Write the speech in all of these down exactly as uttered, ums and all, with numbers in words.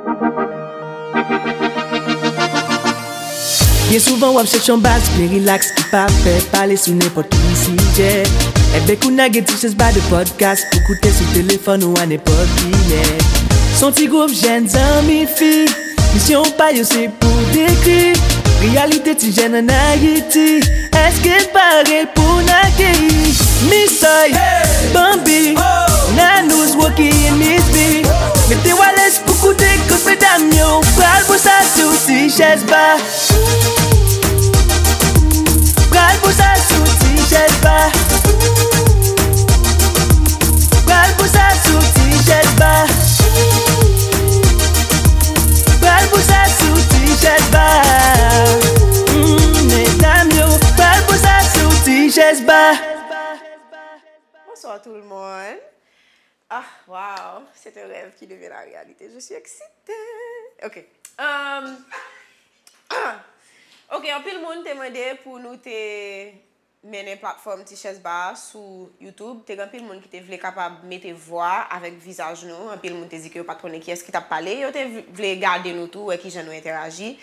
Byen souvan w ap chèche yon baz byen rilaks ki pa pè pale sou nenpòt ki sijè. Enben kounye a gen Ti Chèz Ba de pòdkas pou koute sou telefòn ou a nenpòt kilè. S on ti gwoup jèn zanmi fi, misyon pa yo se pou dekri reyalite ti jèn ann Ayiti. Èske n pare pou n akeyi Misoy, Bambi, Nanouz, Rocky and Miss B? Mete w alèz pou koute kot medam yo pral boul sa sou Ti Chèz Ba. Pral boul sa sou Ti Chèz Ba. Pral boul sa sou Ti Chèz Ba. Pral boul sa sou Ti Chèz Ba. Mm, medam yo, pral boul sa sou Ti Chèz Ba. Bonsoir tout le monde. Ah, wow, c'est un rêve qui devient la réalité. Je suis excitée. Ok. Um, ok, anpil moun te mande pou nou te mennen platfòm Ti Chèz Ba sou YouTube. Te gen anpil moun ki te vle kapab mete vwa avèk vizaj nou. Anpil moun te di ke yo pa t konnen kiyès ki t ap pale. Yo te v- vle gade nou tou, wè kijan nou entèyaji.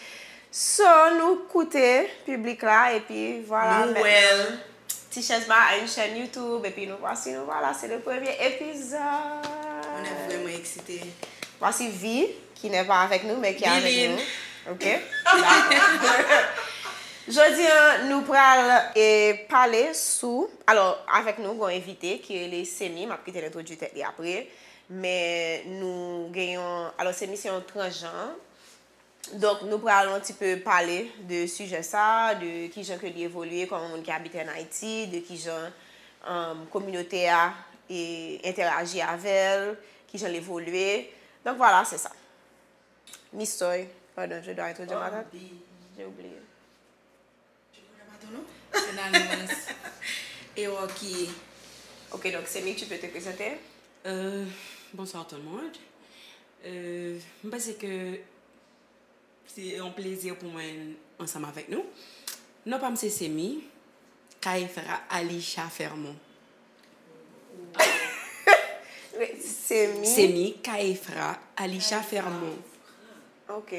So, nou koute piblik la, epi vwala. Nou wè l. Ti Chèz Ba a une chaîne YouTube, epi nou vwasi, nou vwala, se le premye epizòd. On est vraiment excité. Vwasi Vi, ki n'est pas avec nous, mais qui est avec nous. Ok? Dakò. Jodi a, nou pral e, pale sou, alò, avèk nou, gon envite ki rele Semi, m ap kite l entwodui tèt li apre, men nou gen yon, alò, Semi se yon transjan, donk nou pral yon ti pe pale de sijè sa, de kijan ke li evolye kòm yon moun ki abite ann Ayiti, de kijan um, kominote a e, entèyaji avè l, kijan l evolye. Donk, vwala, se sa. Misoy, pardon, je dois être de ma tante. J'ai oublié. Je connais pas ton nom. C'est Nanouz. Et Rocky. Ok, donc Semi, tu peux te présenter? Euh, bonsoir tout le monde. Euh, m panse ke se yon plezi pou mwen ansanm avèk nou. Non pa m se Semi, Kaefra Alisha Fermon. Semi. Semi, Kaefra Alisha Fermon. Ok,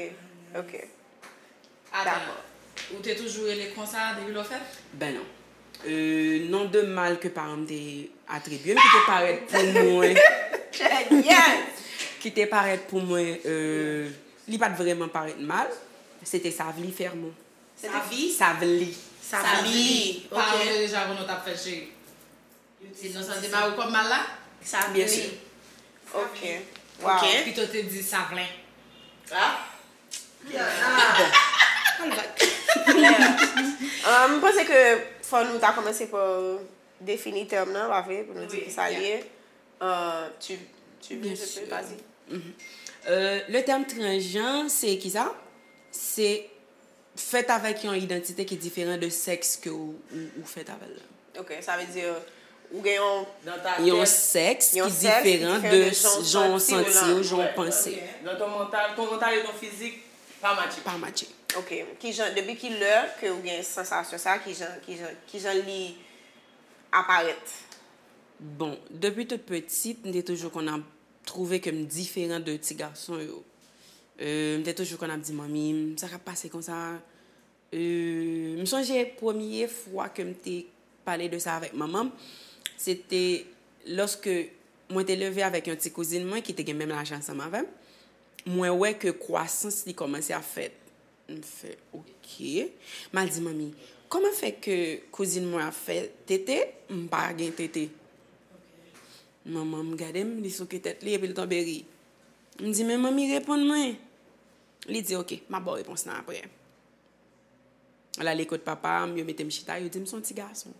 ok. Ata, ou te toujou rele konsa depi lè w fèt? Ben non. Euh, non de mal ke paran m te atribye m, ki te parèt pou mwen. Yes! Ki te parèt pou mwen, euh, li pa t vrèman parèt mal. Se te Savli Fermon. Se te vi? Savli. Savli. Paran w te deja konn w t ap fèt, cheri? Se non sa te ba ou kòm mal la? Savli. Byen si. Ok. Wow. Ok. Pito te di Savlen. Ah. Bon. Klè. Ah, m panse ke fò nou ta kòmanse pa defini tèm nan, pa vre, pou nou di ki sa l ye. Euh, tu, tu veux, je peux, vas-y. Mhm. Euh, le terme transjan, se ki sa? Se fèt avèk yon idantite ki diferan de sèks ke ou, ou, ou fèt avè l la. Ok, sa vle di, ou gen yon, yon sèks ki diferan de jan w santi w, jan w panse. Dans ton mental, ton mental et ton physique pa matche. Pa matche. Ok, ki jan, depi ki lè ke ou gen sansasyon sa, ki jan, ki jan, ki jan li aparèt? Bon, depi tout pitit, m te toujou konn ap twouve ke m diferan de ti gason yo. Euh, m te toujou konn ap di manmi m, sa k ap pase konsa? Euh, m sonje premye fwa ke m te pale de sa avèk manman m, se te lòske mwen te leve avèk yon ti kouzin mwen ki te gen menm laj ansanm avè m. Mwen wè ke kwasans li kòmanse ap fèt. M fè, "Ok." M al di manmi, "Kòman fè ke kouzin mwen ap fè tete, m pa gen tete?" Manman m gade m, li souke tèt li, epi l tonbe ri. M di, "Men manmi, reponn mwen." Li di, "Ok, m ap ba w repons lan apre." L ale kot papa m, yo mete m chita, yo di m s on ti gason.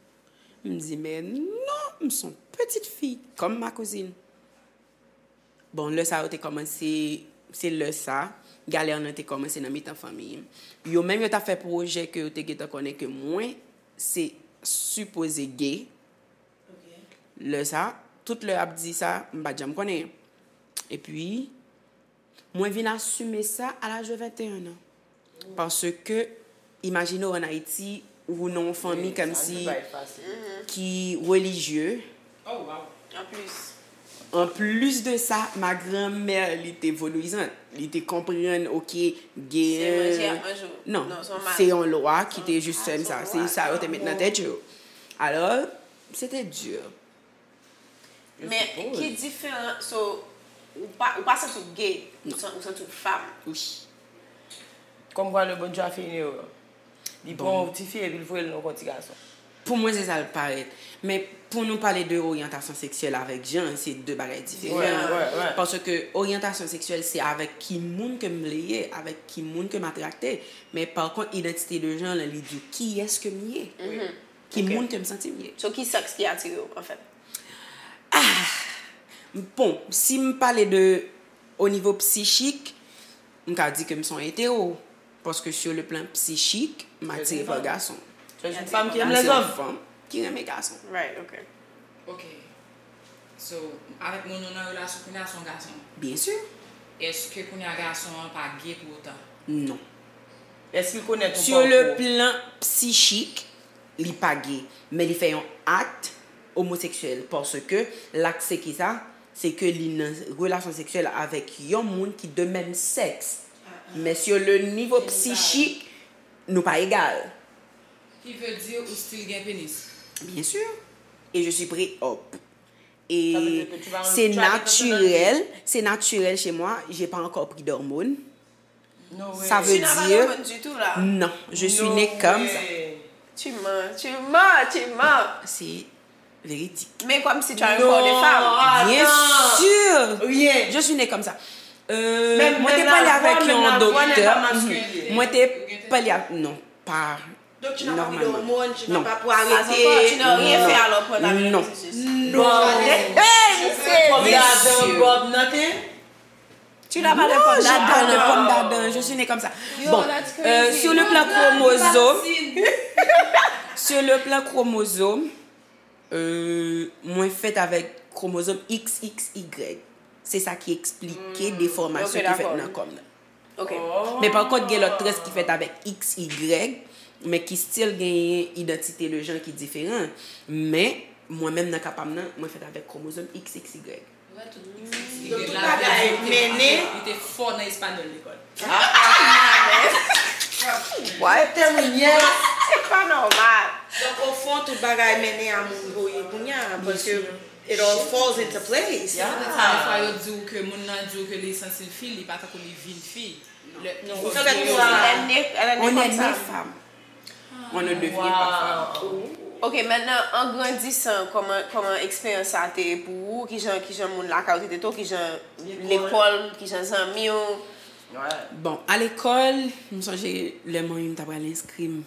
M di, "Men non, m s on pitit fi, kòm ma kouzin." Bon, lè sa yo te kòmanse, se lè sa, galè nan te kòmanse nan mitan fanmi m. Yo menm yo t ap fè pwojè ke yo te gentan konnen ke mwen se sipoze gay. Lè sa, tout lè y ap di sa, m pa t janm konnen. Epi, mwen vin asime sa a laj de venteyen an. Paske, imajine w ann Ayiti, ou nan yon fanmi kòmsi ki relijye. Oh, wow. An plis. Anplis de sa, ma granmè, li te vodouyizant. Li te konprann, oke, gen... Se manje ap manje w. Non, se yon lwa ki te jis fè m sa. Se sa yo te met nan tèt yo. Alò, se te di. Men ki diferan, so, ou pa, ou pa santi w gay, ou san- ou santi w fanm. Wi. Kòmkwa le Bondye a fè yon erè. Li pran yon ti fi epi l voye l nan yon ti gason. Pou mwen, se sa l parèt. Men pou nou pale de oryantasyon seksyèl avèk jan, se de bagay diferan. Paske oryantasyon seksyèl, se avèk ki moun ke m vle ye, avèk ki moun ke m atrakte. Men pa kont, idantite de jan, li di w kiyès ke m ye. Ki moun ke m santi m ye. So, ki sèks ki atire w, anfèt? Ah! Bon, si m pale de o nivo psichik, m ka di ke m se yon etero. Paske sur le plan psychique, m atire pa gason. So, se yon fanm ki renmen lèzòm. Se yon fanm ki renmen gason. Right, ok. Ok. So, avèk moun ou nan relasyon kounye a, se yon gason. Byen si. Èske kounye a gason an pa gay pou otan? Non. Èske l konèt ou pa? Sur le plan psychik, li pa gay, men li fè yon ak omoseksyèl, paske l ak se ki sa? Se ke li nan relasyon seksyèl avèk yon moun ki de menm sèks. Men sur le nivo psichik, nou pa egal. Ki vle di ou still gen penis? Bien sûr. Et je suis pré-op. Et c'est naturel, c'est naturel chez moi, j'ai pas encore pris d'hormones. Ça veut dire, non, je suis née comme ça. Tu mens, tu mens, tu mens. C'est véridique. Men kòmsi tu as un corps de femme. Bien sûr. Je suis née comme ça. Euh, mwen te pale avèk yon doktè. Mwen te pale avèk, non, pa Donk, tu n'as pas pris d'hormones, tu n'as pas pour arrêter. Tu n'as rien fait alors pour entamer le processus. Non. Hey, misye! Bob Dadon, Bob nothing? Tu n'as pas de pomme d'Adam. Non, j'ai pas de pomme d'Adam. Je suis née comme ça. Bon, euh, sur le plan chromosome, sur le plan chromosome, euh, mwen fèt avèk kromozòm X X Y. Se sa ki eksplike defòmasyon ki fèt nan kò m nan. Ok. Men pa kont, gen lòt trans ki fèt avèk X Y, men ki still genyen idantite de jan ki diferan. Men, mwen menm nan ka pa m nan, mwen fèt avèk kromozòm X X Y. Donk, tout bagay mennen. Li te fò nan espanyòl lekòl. What? Se pa nòmal. Donk, ofon, tout bagay mennen a moun voye kounye a, paske it all falls into place. Defwa yo di w ke moun nan di w ke li santi l fi, li pa tankou li vin fi. On est né femme. On ne devient pas femme. Ok, maintenant, en grandissant, kòman, kòman eksperyans sa te ye pou ou? Kijan, kijan moun lakay ou te trete w? Kijan lekòl, kijan zanmi w? Bon, a lekòl, m sonje lè manmi m ta pral enskri m.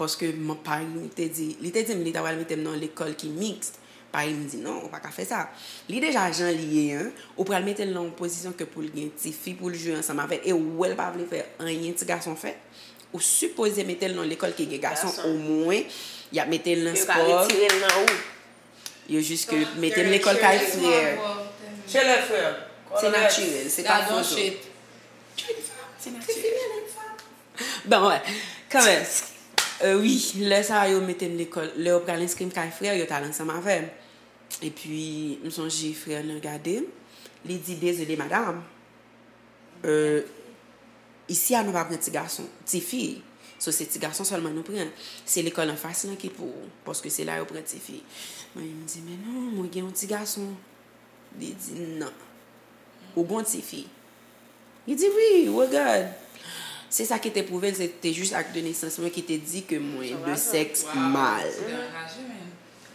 Paske m, pari m te di, li te di m li ta pral mete m nan yon lekòl ki miks. Pari m di, "Non, ou pa ka fè sa." Li deja jan li ye an, ou pral mete l nan yon pozisyon ke pou l gen tifi pou l jwe ansanm avè l, e ou wè l pa vle fè anyen ti gason fè, ou sipoze mete l nan yon lekòl ki gen gason, omwen, y ap mete l nan spò. Yo ka retire l nan ou. Yo jis ke mete l lekòl kay frè. Chez les frères. Se natirèl, se pa foto. Se natirèl. Bon, wè. Kanmenm. Euh, wi, lè sa a, yo mete m lekòl. Lè yo pral enskri m kay frè, yo t al ansanm avè m. Epi, m sonje frè nan gade m. Li di, "Dezole, madanm. Euh, isi a, nou pa pran ti gason, ti fi. So, se ti gason sèlman nou pran. Se lekòl anfas lan ki pou ou, paske se la yo pran ti fi." Mwen, m di, "Men non, mwen gen yon ti gason." Li di, "Non. Ou gon tifi." Li di, "Wi, regard." Se sa ki te pwouve l, se te jis ak de nesans mwen ki te di ke mwen de sèks mal.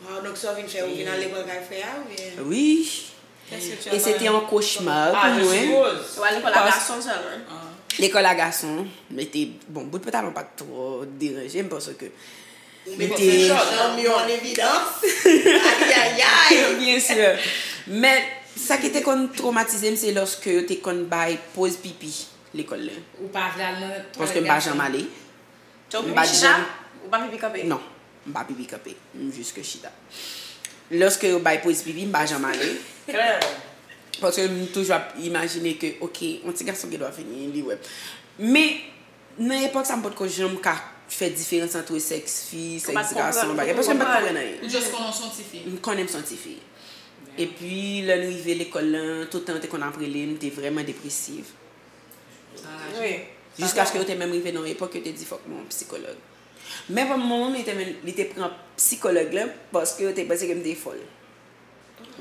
Wow, donk sa w vin fè, ou vin al lekòl kay frè a, oubyen? Wi. E se te yon kochma pou mwen. Ou al lekòl a gason sèlman? Lekòl a gason, mete, bon, bout pantalon pa t twò deranje m, paske Ou mete zanmi w an evidans. Ayayay. Byen si. Men, sa ki te konn twomatize m, se lòske yo te konn bay poz pipi lekòl la. Ou pa vle al nan twalèt gason? Paske m pa janm ale. M pa janm. Ou pa pipi kanpe? Non, m pa pipi kanpe. M jis ke chita. Lòske yo bay poz pipi, m pa janm ale. Klè. Paske m toujou ap imajine ke, oke, yon ti gason gen dwa vini, li wè m. Men, nan epòk sa, m potko janm ka fè diferans ant sèks fi, sèks gason, bagay, paske m pa t konprann anyen. Ou just konnen w se yon tifi? M konnen m se yon tifi. Epi, lè n rive lekòl lan, tout tan yo te konn ap rele m, m te vrèman depresiv. Wi. Jiskaske yo te menm rive nan yon epòk yo te di fòk mwen yon psikològ. Men manman m, li te, men, li te pran psikològ lan paske yo te panse ke m te fòl.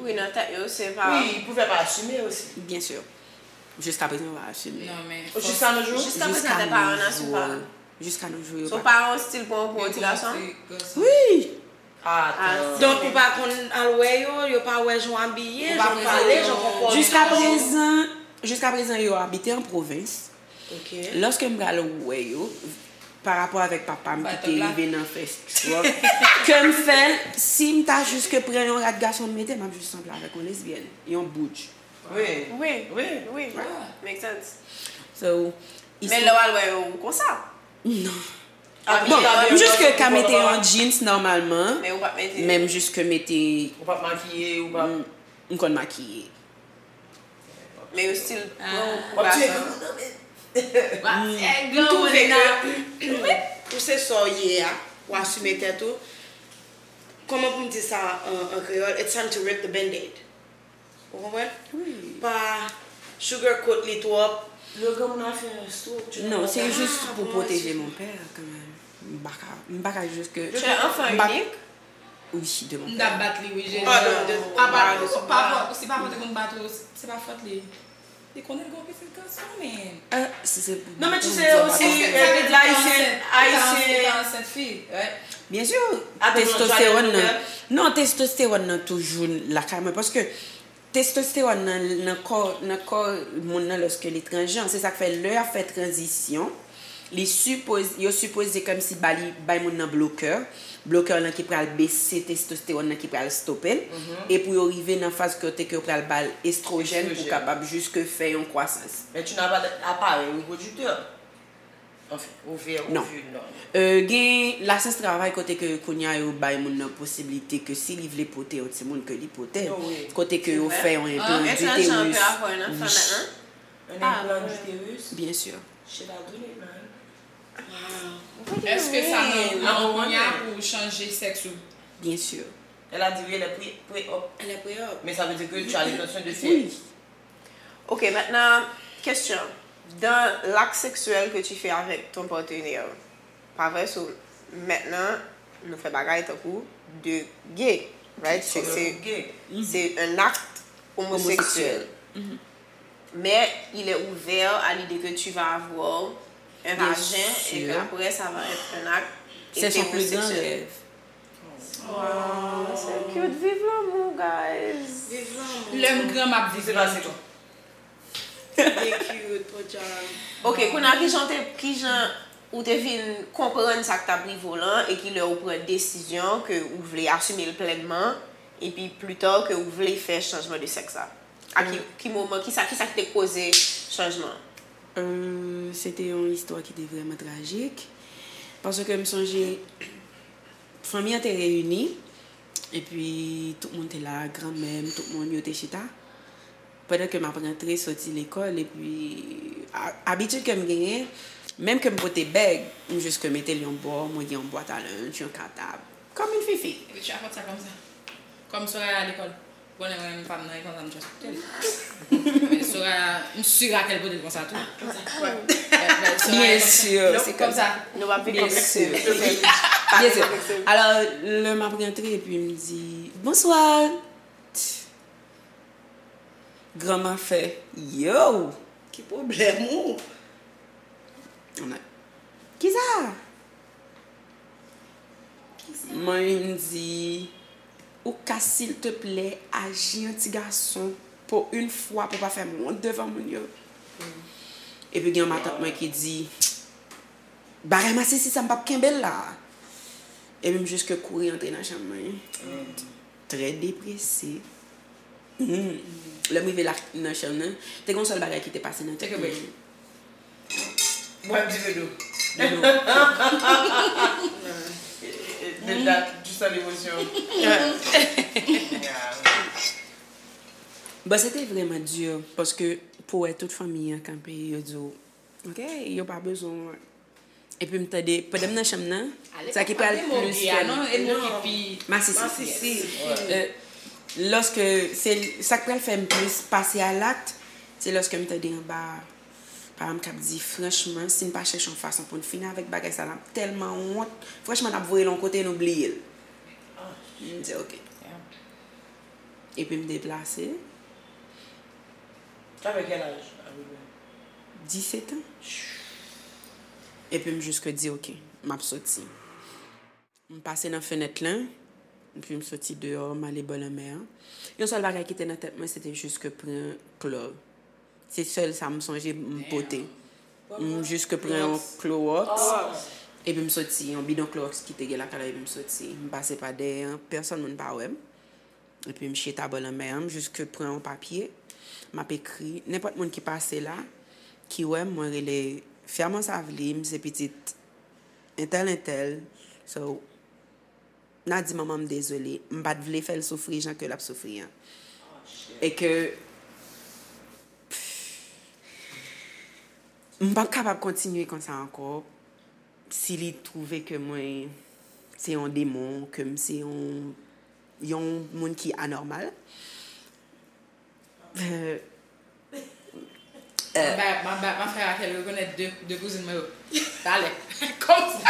Wi, nan tèt yo, se pa. Wi, pou fè pa asime osi. Byen si. Jiska prezan, yo pa asime. Non, men. Jiska nos jours? Jiska prezan, tèt paran an asime pa. Jiska nos jours, yo pa. So, paran w still pran w pou yon ti gason? Wi! Atan. Donk, ou pa konn al wè yo, yo pa wè jan w abiye, jan w pale, jan w konpòte w. Jiska prezan, jiska prezan, yo abite an pwovens. Lòske m pral wè yo, pa rapò avèk papa m ki te rive nan fè stroke, ke m fè l, si m ta jis ke pran yon rad gason m mete, m ap jis sanble avèk yon lesbyèn, yon boudj. Wi. Wi. Wi. Wi. Make sense. So, Men lè w al wè yo, ou konsa? Non. Bon, m jis ke ka mete yon jeans nòmalman, men m jis ke mete. Ou p ap makiye, ou p ap. M konn makiye. Men yo still pran w pou gason. M twouve ke ou se sa w ye a, ou asime tèt ou. Kòman pou m di sa an, an kreyòl? It's time to rip the band-aid. Ou konprann? Wi. Pa sugarcoat li twòp. Lè granmoun nan fè yon stroke, tu ne peux pas. Non, se jis pou pwoteje mon père kanmenm. M pa ka, m pa ka jis ke. Tu es enfant unique? Wi, de mon père. M t ap bat li wi, Jezi. Papa, si papa w te konn bat ou, se pa fòt li. Li konnen l gen yon pitit gason, men. Non, men tu sais osi, Ayisyen, Ayisyen. Ou ta ansent fi, right? Byen si, testostewòn nan. Non, testostewòn nan toujou lakay mwen, paske testostewòn nan, nan kò, nan kò moun nan lòske li transjan. Se sa k fè lè y ap fè tranzisyon, li sipoze, yo sipoze kòmsi ba li, bay moun nan blokè. Blokè lan ki pral bese testostewòn nan ki pral stope l. E pou yo rive nan faz kote ke yo pral ba l estwojèn pou kapab jiske fè yon kwasans. Men tu n'as pas d'appareil reproducteur. Anfen, ovè, ovil, non. Euh, gen lasyans travay kote ke kounye a yo bay moun nan posiblite ke si li vle pote yon timoun ke li pote l. Kote ke yo fè yon enplan du utérus. Un implant d'utérus? Byen si. Shit, I do need mine. Wow. Èske sa nan plan w kounye a pou w chanje sèks ou? Byen si. Elle a dit oui, elle est pré-op. Elle est pré-op. Mais ça veut dire que tu as l'intention de faire. Oui. Ok, maintenant, question. Dans l'acte sexuel que tu fais avec ton partenaire, pa vre? So, maintenant, nou fè bagay tankou de gay, right? Se, se, se un acte homosexuel. Mais il est ouvert à l'idée que tu vas avoir un vagin et qu'après ça va être un acte hétérosexuel. Wow, so cute. Viv lanmou, guys. Viv lanmou. Lè m gran, m ap viv lanmou tou. Li cute, podyab. Ok, kounye a, kijan w te, kijan ou te vin konprann sa k t ap rive w lan, e ki lè ou pran desizyon ke ou vle asime l plènman, epi pli ta ke ou vle fè chanjman de sèks la? A ki, ki moman, kisa, kisa ki te koze chanjman an? Euh, se te yon istwa ki te vrèman trajik. Paske m sonje, fanmi an te reyini, epi tout moun te la, granmè m, tout moun, yo te chita. Pandan ke m ap rantre soti lekòl, epi a-, abitid ke m genyen, menm ke m pote bèg, m jis ke mete l yon bò, mwen gen yon bwat a lenj, yon katab. Kòm yon fifi. Epi chapòt sa kòm sa. Kòm Soraya lekòl. Bon, lè mwen menm pa m nan, e konsa m just pote l. Men Soraya, m si Raquel pote l konsa tou. Konsa. Byen si, se kòm sa. Nou p ap vin konplekse. Byen si. Alò, lè m ap rantre, epi m di, bonswa. Granma fè, yo! Ki pwoblèm ou? Kisa? Mwen di, ou ka silteplè aji an ti gason pou yon fwa pou pa fè m wont devan moun yo? Epi gen yon matant mwen ki di, bagay masisi sa m p ap kenbe l la. Epi m jis ke kouri antre nan chanm mwen. Trè deprese. Lè m rive la nan chanm nan, te gen yon sèl bagay ki te pase nan tèt mwen. Bwè yon ti ve dlo. Dlo. De dat, tu sens l'émotion. Bon, se te vrèman di, paske pou wè tout fanmi an kanpe, yo di w, ok, yo pa bezwen w. Epi m tande, pandan m nan chanm nan, sa ki pral plis fè m. Masisi. Lòske se sa k pral fè m plis pase a lakt, se lòske m tande anba paran m k ap di, franchman, si n pa chèche yon fason pou n fini avèk bagay sa, n ap tèlman wont. Franchman, n ap voye l yon kote, nou bliye l. M di, "Ok." Epi m deplase. T'avais quel âge, à peu près? Disèt an. Epi m jis di, "Ok, m ap soti." M pase nan fenèt lan, epi m soti deyò, m ale bò lanmè an. Yon sèl bagay ki te nan tèt mwen, se te jis ke pran klò. Se sèl sa m sonje m pote. M jis ke pran yon klowòks, epi m soti, yon bidon klowòks ki te gen lakay la, epi m soti. M pase pa dèyè an, pèsonn moun pa wè m. Epi m chita bò lanmè an, m jis ke pran yon papye, m ap ekri. Nenpòt moun ki pase la, ki wè m, mwen rele Fèman Savli, m se pitit entèl, entèl. So, n a di manman m dezole. M pa t vle fè l soufri jan ke l ap soufri an. E ke m p ap kapab kontinye konsa ankò. Si li twouve ke mwen se yon demon, ke m se yon, yon moun ki anòmal, euh, M ap ba, m ap ba, m ap fè Raquel rekonèt de, de kouzin mwen yo. Talè. Kòmsi.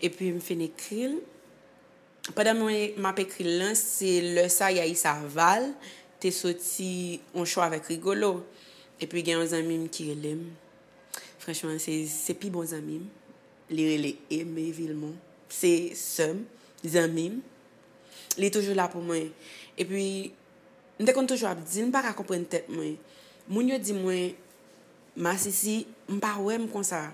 Epi m fin ekri l. Pandan mwen, m ap ekri l lan, se lè sa Yaïsa Val te soti on show avèk Rigolo. Epi gen yon zanmi m ki rele m. Franchman, se, se pi bon zanmi m. Li rele Aimé Vilmont. Se sè m, zanmi m. Li toujou la pou mwen. Epi, m te konn toujou ap di l, m pa ka konprann tèt mwen. Moun yo di mwen, masisi, m pa wè m konsa.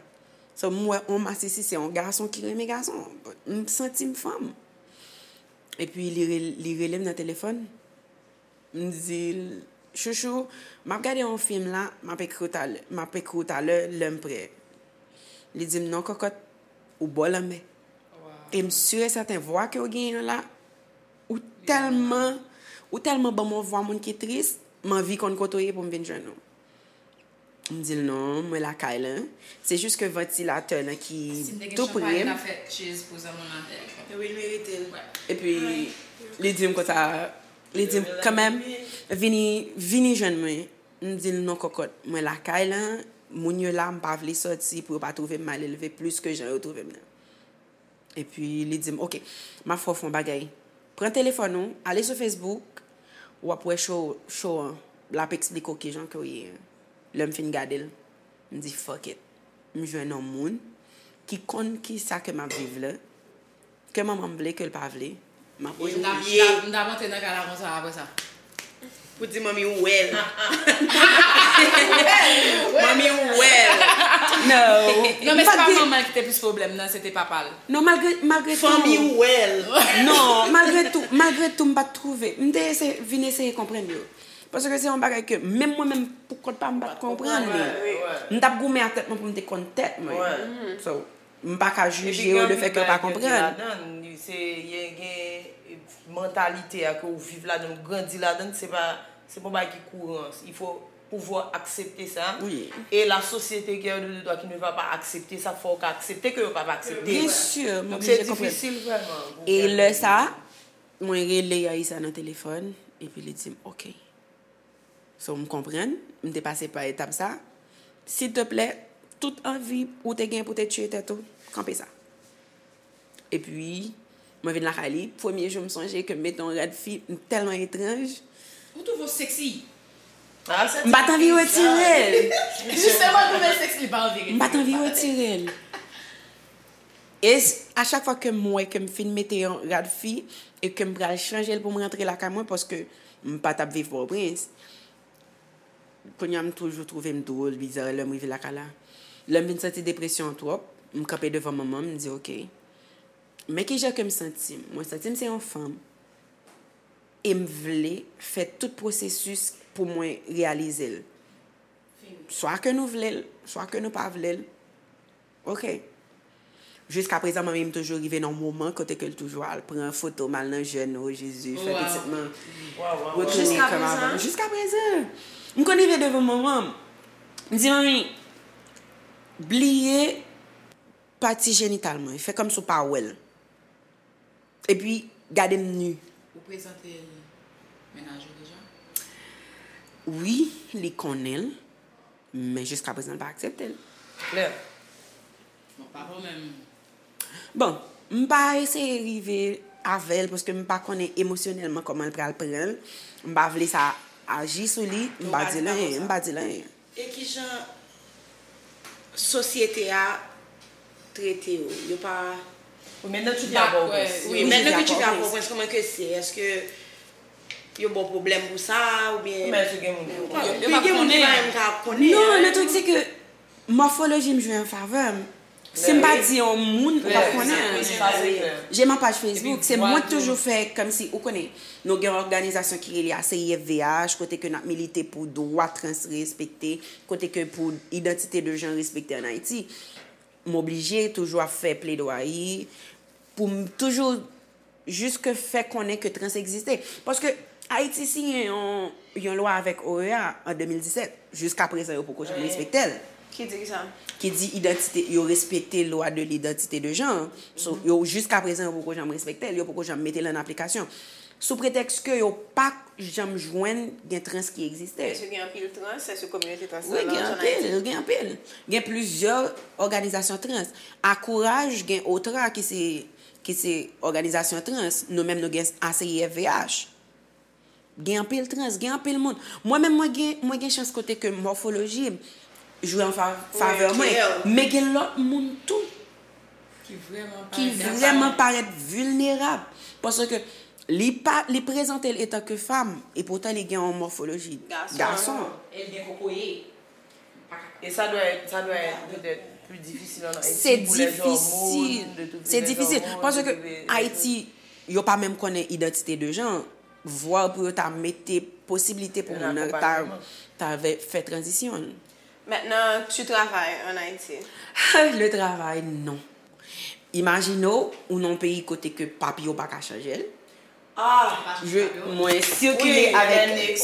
So, m wè on masisi, se on gason ki renmen gason. M santi m fanm. Epi, li, re- li rele m nan telefòn. M di l, "Chouchou, m ap gade yon fim la, m ap ekri w talè, m ap ekri w talè, lè m prè." Li di m, "Non, kòkòt, ou bò lanmè." E m si e sèten vwa ke w genyen an la, ou tèlman, ou tèlman ban m yon vwa moun ki tris, m anvi konn kote w ye pou m vin jwenn ou. M di l, "Non, mwen lakay lan." Se jis ke vantilatè lan ki tou pre m. Si m te gen chanpay, m ta fè cheers pou zanmi w nan tèt. Wi, l merite l. Epi, li di m konsa, li di m, "Kanmenm, vini, vini jwenn mwen." M di l, "Non, kòkòt, mwen lakay lan, moun yo la, m pa vle sòti pou yo pa twouve m malelve plis ke jan yo twouve m nan." Epi li di m, "Ok, m ap fè w fè yon bagay. Pran telefòn ou, ale sou Facebook, w ap wè show, show an, l ap eksplike w kijan ke w ye." Lè m fin gade l, m di, "Fuck it." M jwenn yon moun ki konn kisa ke m ap viv la, ke manman m vle, ke l pa vle, m ap M t ap, m t ap, m t ap antre nan kay la konsa apre sa. Pou di manmi ou wè l. Manmi ou wè l. No. Non, men se pa manman l ki te plis pwoblèm nan, se te papa l. Non, malgre, malgre tou. Fanmi ou wè l. Non, malgre tou, malgre tou, m pa t twouve. M te eseye, vin eseye konprann yo. Paske se yon bagay ke menm mwen menm pou kont pa m, m pa t konprann li. M t ap goumen ak tèt mwen pou m te konn tèt mwen. So, m pa ka jije yo lefètke yo pa konprann. Epi gen anpil bagay ke yo di ladan, se, gen, gen mantalite a ke ou viv ladan, ou grandi ladan, se pa, se pa yon bagay ki kouran. Il faut pouvoir accepter ça. Wi. E la société qui est de droit qui ne va pas accepter ça, fò ou ka aksepte ke yo pa va aksepte. Byen si, m oblije konprann. Donk, se difisil vrèman pou... E lè sa, mwen rele Yaïsa nan telefòn, epi li di m, "Ok." So, m konprann, m te pase pa etap sa. Silteplè, tout anvi ou te gen pou te tiye tèt ou, kanpe sa. Epi, mwen vin lakay li, premye jou m sonje ke m mete yon rad fi, m tèlman etranj. Ou twouve w seksi. M pa t anvi retire l. Jisteman, l twouve l seksi, li pa anvi retire l. M pa t anvi retire l. E s- a chak fwa ke m wè ke m fin mete yon rad fi e ke m pral chanje l pou m rantre lakay mwen, paske m pa t ap viv Pòtoprens. Kounye a, m toujou twouve m dwòl, biza, lè m rive lakay la. Lè m vin santi depresyon an twòp, m kanpe devan manman m, m di, "Ok, men kijan ke m santi m. Mwen santi m se yon fanm, e m vle fè tout pwosesis pou mwen reyalize l. Swa ke nou vle l, swa ke nou pa vle l." Ok. Jiskaprezan, manmi m toujou rive nan yon moman kote ke l toujou al pran foto m, al nan jèn, o Jezi, fè pitit mwen retounen kòm avan. Jiskaprezan. M konn rive devan manman m. M di, "Manmi, bliye pati jenital mwen. Fè kòmsi w pa wè l." Epi, gade m ni. Ou prezante l mennaj ou deja? Wi, li konnen l, men jiska prezan l pa aksepte l. Klè. Bon, pa pwoblèm. Bon, m pa eseye rive avè l paske m pa konnen emosyonèlman kòman l pral pran l. M pa vle sa aji sou li, m pa di l anyen, m pa di l anyen. E kijan sosyete a trete yo? Yo pa... Ou menm nan Twitter a, pa w prens. Wi, menm nan Twitter a, pa w prens, kòman ke se? Èske yo ba w pwoblèm pou sa, oubyen... Ou menm, èske gen moun ki... Yo pa konnen. Gen moun ki pa menm ka konnen. Non, le truc, c'est que mòfoloji m jwe an favè m. Si m pa di yon moun, ou p ap konnen. J'ai ma page Facebook, se mwen k toujou fè kòmsi, ou konnen, nou gen yon òganizasyon ki rele A C I F V H, kote ke n ap milite pou dwa trans respekte, kote ke pou idantite de jan respekte ann Ayiti. M oblije toujou ap fè pledwayi pou m toujou jiske fè konnen ke trans egziste. Paske Ayiti siyen yon, yon lwa avèk O E A an de mil disèt. Jiska prezan, yo poko janm respekte l. Ki di ki sa? Ki di idantite, yo respekte lwa de lidantite de jan. So, yo, jiska prezan, yo poko janm respekte l, yo poko janm mete l an aplikasyon. Sou pretèks ke yo pa janm jwenn gen trans ki egziste. Èske gen anpil trans? Èske kominote trans lan... Wi, gen anpil, gen anpil. Gen plizyè òganizasyon trans. Akouraj, gen OTRA ki se, ki se òganizasyon trans. Nou menm, nou gen A C I F V H. Gen anpil trans, gen anpil moun. Mwen menm, mwen gen, mwen gen chans kote ke mòfoloji jwe an fa-, favè mwen. Men gen lòt moun tou ki vrèman parèt vilnerab. Paske li pa, li prezante l etan ke fanm, e poutan li gen yon mòfoloji gason. E li gen kokoye. E sa dwe, sa dwe petèt pli difisil ann Ayiti pou lè zòmòn, de tout lè zòmòn, de tout lè... Se difisil. Paske Ayiti, yo pa menm konnen idantite de jan, vwa pou yo ta mete posiblite pou moun nan ta, ta fè tranzisyon l. Maintenant, tu travailles en Haïti? Le travail, non. Imajine w, ou nan yon peyi kote ke papye w pa ka chanje l. Ah, je, mwen sikile avèk,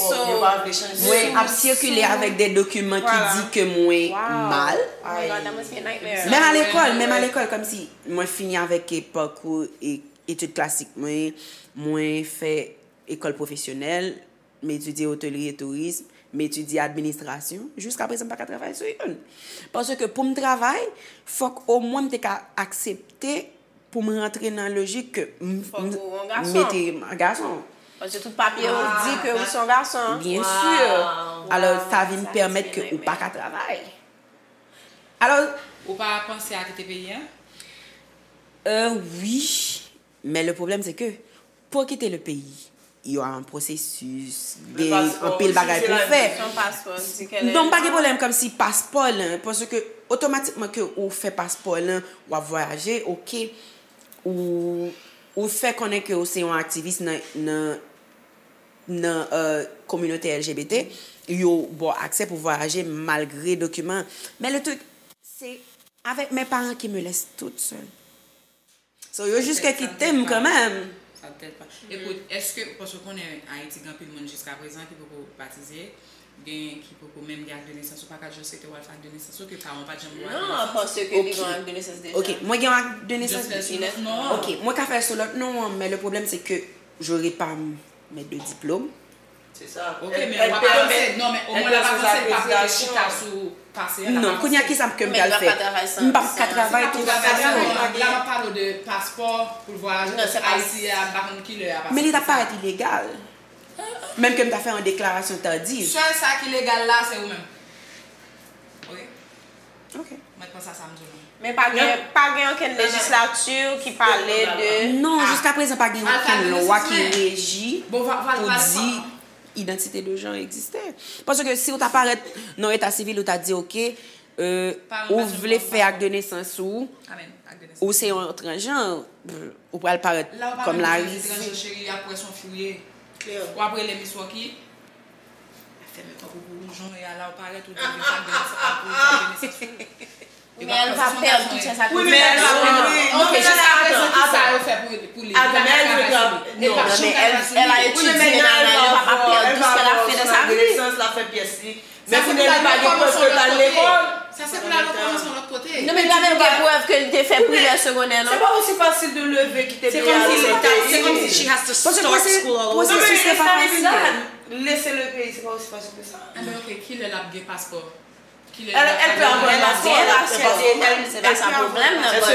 mwen ap sikile avèk de dokiman ki di ke mwen mal. Menm a lekòl, menm a lekòl, kòmsi mwen fini avèk, e, pakou, e, etid klasik mwen, mwen fè ekòl pwofesyonèl, m etidye otelri e tourism, m etidye administrasyon, jiska prezan m pa ka travay sou youn. Paske pou m travay, fòk omwen m te ka aksepte pou m rantre nan lojik ke m, m mete m gason. Paske tout papye yo di ke ou se yon gason. Byen si. Alò, sa vin pèmèt ke ou pa ka travay. Alò, ou pa panse a kite peyi a? Euh, wi. Men le problème, c'est que pou w kite le peyi, y a un processus, gen anpil bagay pou w fè. Non, m pa gen pwoblèm kòmsi paspò lan, paske otomatikman ke ou fè paspò lan, w ap vwayaje, oke, ou, ou fè konnen ke ou se yon aktivis nan, nan, nan, euh, kominote L G B T, yo ba w aksè pou vwayaje malgre dokiman. Men le truc, c'est avec mes parents qui me laissent toute seule. So, yo jiska kite m kanmenm. Sa tèt pa. Ekout, èske, paske w konnen Ayiti gen anpil moun jiska prezan ki poko batize, gen ki poko menm gen ak de nesans, ou pa ka just rete w al fè ak de nesans ou ke paran w pa t janm ba w ak de nesans. Non, paske li gen ak de nesans deja. Ok, mwen gen ak de nesans deja. Ok, mwen ka fè l sou lòt non an, men le problème c'est que j'aurai pas mes deux diplômes. Se sa. Ok, men w ap avanse. Non, men omwen l ap avanse, l p ap rete chita sou pase a. Non, kounye a, kisa ke m pral fè? M p ap ka travay tou. Travay, la m ap pale w de paspò pou l vwayaje, paske Ayiti a, m pa konn kilè a pase. Men li t ap parèt ilegal. Menm ke m ta fè yon deklarasyon tardif. Sèl sa ki legal la, se ou menm. Ok? Ok. Mwen panse a sa m di w. Men pa gen, pa gen okenn lejislati ki pale de... Non, jiska prezan pa gen okenn lwa ki reji pou di idantite de jan egziste. Paske si w ta parèt nan eta sivil, ou ta di, oke, euh, ou vle fè ak de nesans ou, ou se yon transjan, ou pral parèt kòm la... Transjan, cheri, y ap wè se yon fi w ye. W ap rele Miss Rocky. Fèmen kòb ou pou woujon e ala w parèt ou di w vin fè ak de nesans, ak de nesans ou. Men elle va perdre tout sa. Wi, men elle va perdre. Ok, jiska prezan, ki sa yo fè pou, pou li? Li pa ka travay sou li. Non, mais elle, elle a étudié, nan, nan, elle va pas perdre tout ce qu'elle a fait dans sa vie. Sa fè pou l al fè kòb yon sòt lòt kote. Sa se pou l al rekòmanse yon lòt kote. Non, men li pa menm gen prèv ke li te fè primè, segondè, non? C'est pas aussi facile de lever, quitter le pays, aller dans un autre pays. Paske pwosesis la pa fasil. Laisser le pays, c'est pas aussi facile que ça. Ah, mais ok, kilè l ap gen paspò? Kilè l ap gen paspò? Elle, elle peut avoir un passeport, c'est pas ça le problème, non, but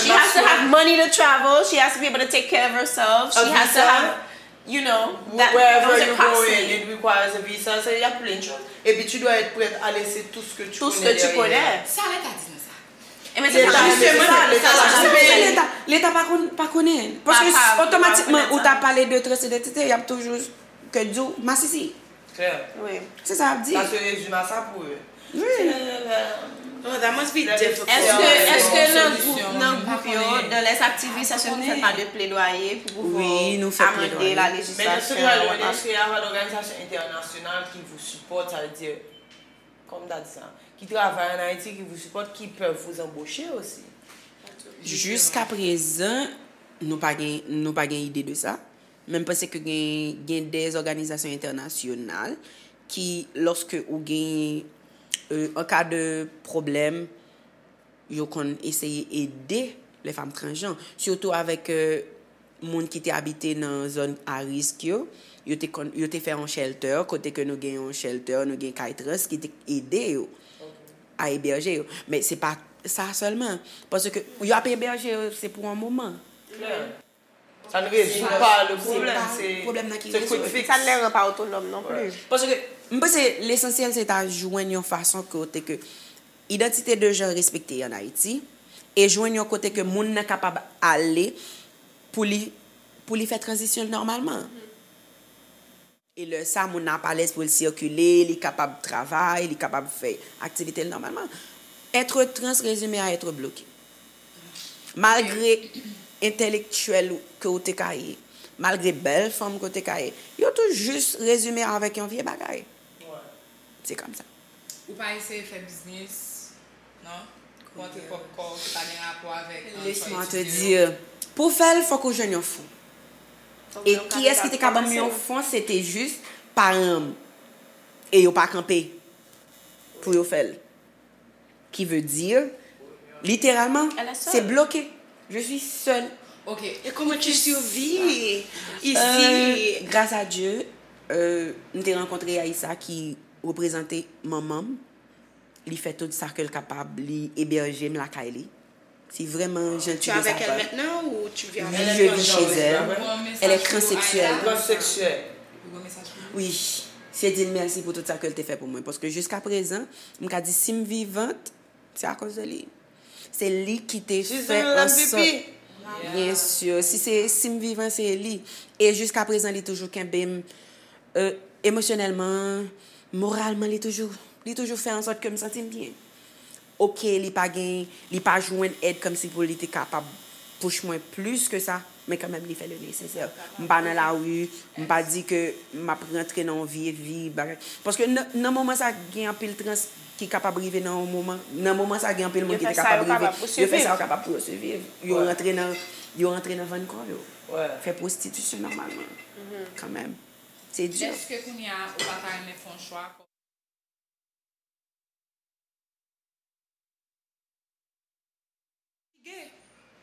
she has to have money to travel, she has to be able to take care of herself, she has to have You know, that, wherever you going, it requires a visa. Ça, il y a plein de choses. Et puis tu dois être prête à laisser tout ce que tu tout ce connais que tu derrière. Connais. Sa leta di nou sa. E men se sa, se sa, leta la. Leta, leta pa konn, pa konnen. Paske otomatikman ou ta pale de transidentite, y ap toujou ke di w masisi. Claire. Oui. Se sa y ap di. Ça se résume à ça pour eux. Oui. Oh, that must be difficult. Èske, èske nan gwoup, nan gwoup yo, dans les activistes, èske nou fè pa de plaidoyer pou pouvwa amande la législation? Mais dans ce cas, l'U N H C R, l'organisation internationale qui vous supporte, ça veut dire, comme t'as dit ça, qui travaille en Haïti, qui vous supporte, qui peuvent vous embaucher aussi. Jiska prezan, nou pa gen, nou pa gen ide de sa. Men m panse ke gen, gen de òganizasyon entènasyonal ki, lòske ou gen, euh, an ka de pwoblèm, yo konn eseye ede les femmes transgenres. Sitou avèk, euh, moun ki te abite nan zòn a risk yo, yo te konn, yo te fè yon shelter, kote ke nou gen yon shelter, nou gen kay trans ki te ede yo a ebèje yo. Men se pa sa sèlman. Paske yo ap ebèje yo, se pou yon moman. Ça ne résout pas le problème, c'est quick fix. Sa ne les rend pas autonomes non plus. Paske m panse lesansyèl se ta jwenn yon fason kote ke idantite de jan respekte an Ayiti e jwenn yon kote ke moun nan kapab ale pou li, pou li fè tranzisyon l nòmalman. E lè sa, moun nan ap alèz pou l sikile, li kapab travay, li kapab fè aktivite l nòmalman. Être trans résumé à être bloqué. Malgre entèlektyèl ke w te ka ye, malgre bèl fanm ke w te ka ye, yo tou jis rezime avèk yon vye bagay. Se kòmsa. Ou pa eseye fè biznis, non? Ou antre pwòp kò w ki pa gen rapò avèk, euh, sa w etidye yo? Laisse-moi te dire, pou w fè l, fòk ou jwenn yon fon. E kiyès ki te ka ban m yon fon, se te jis paran m. E yo pa kanpe pou yo fè l. Qui veut dire, littéralement, c'est bloqué. Je suis seule. Ok. Et comment tu survis ici? Euh, grâce à Dieu, euh, m te rankontre Aïssa ki reprezante manman m. Li fè tout sa ke l kapab, li ebèje m lakay li. Si vrèman jan ti de sa. Tu es avec elle maintenant ou tu vis avec elle? Oui, je vis chez elle. Elle est transsexuelle. Transsexuelle. Oui. Se di l mèsi pou tout sa ke l te fè pou mwen. Paske jiska prezan, m ka di si m vivant, se akoz de li. Se li ki te fè an sòt. Bien sûr. Si se, si m vivan, se li. E jiska prezan, li toujou kenbe m, euh, emosyonèlman, moralman, li toujou, li toujou fè an sòt ke m santi m byen. Oke, li pa gen, li pa jwenn èd kòmsi pou li te kapab push mwen plis ke sa, men kanmenm li fè le nesesè. M pa nan lari, m pa di ke m ap rantre nan yon vye vi, bagay. Paske nan, nan moman sa, gen anpil trans ki kapab rive nan yon moman, nan moman sa, gen anpil moun ki te kapab rive, yo fè sa yo kapab pou yo siviv. Yo rantre nan, yo rantre nan vann kò yo. Fè pwostitisyon nòmalman. Kanmenm. Se di. Èske kounye a, ou pa ta renmen fè yon chwa?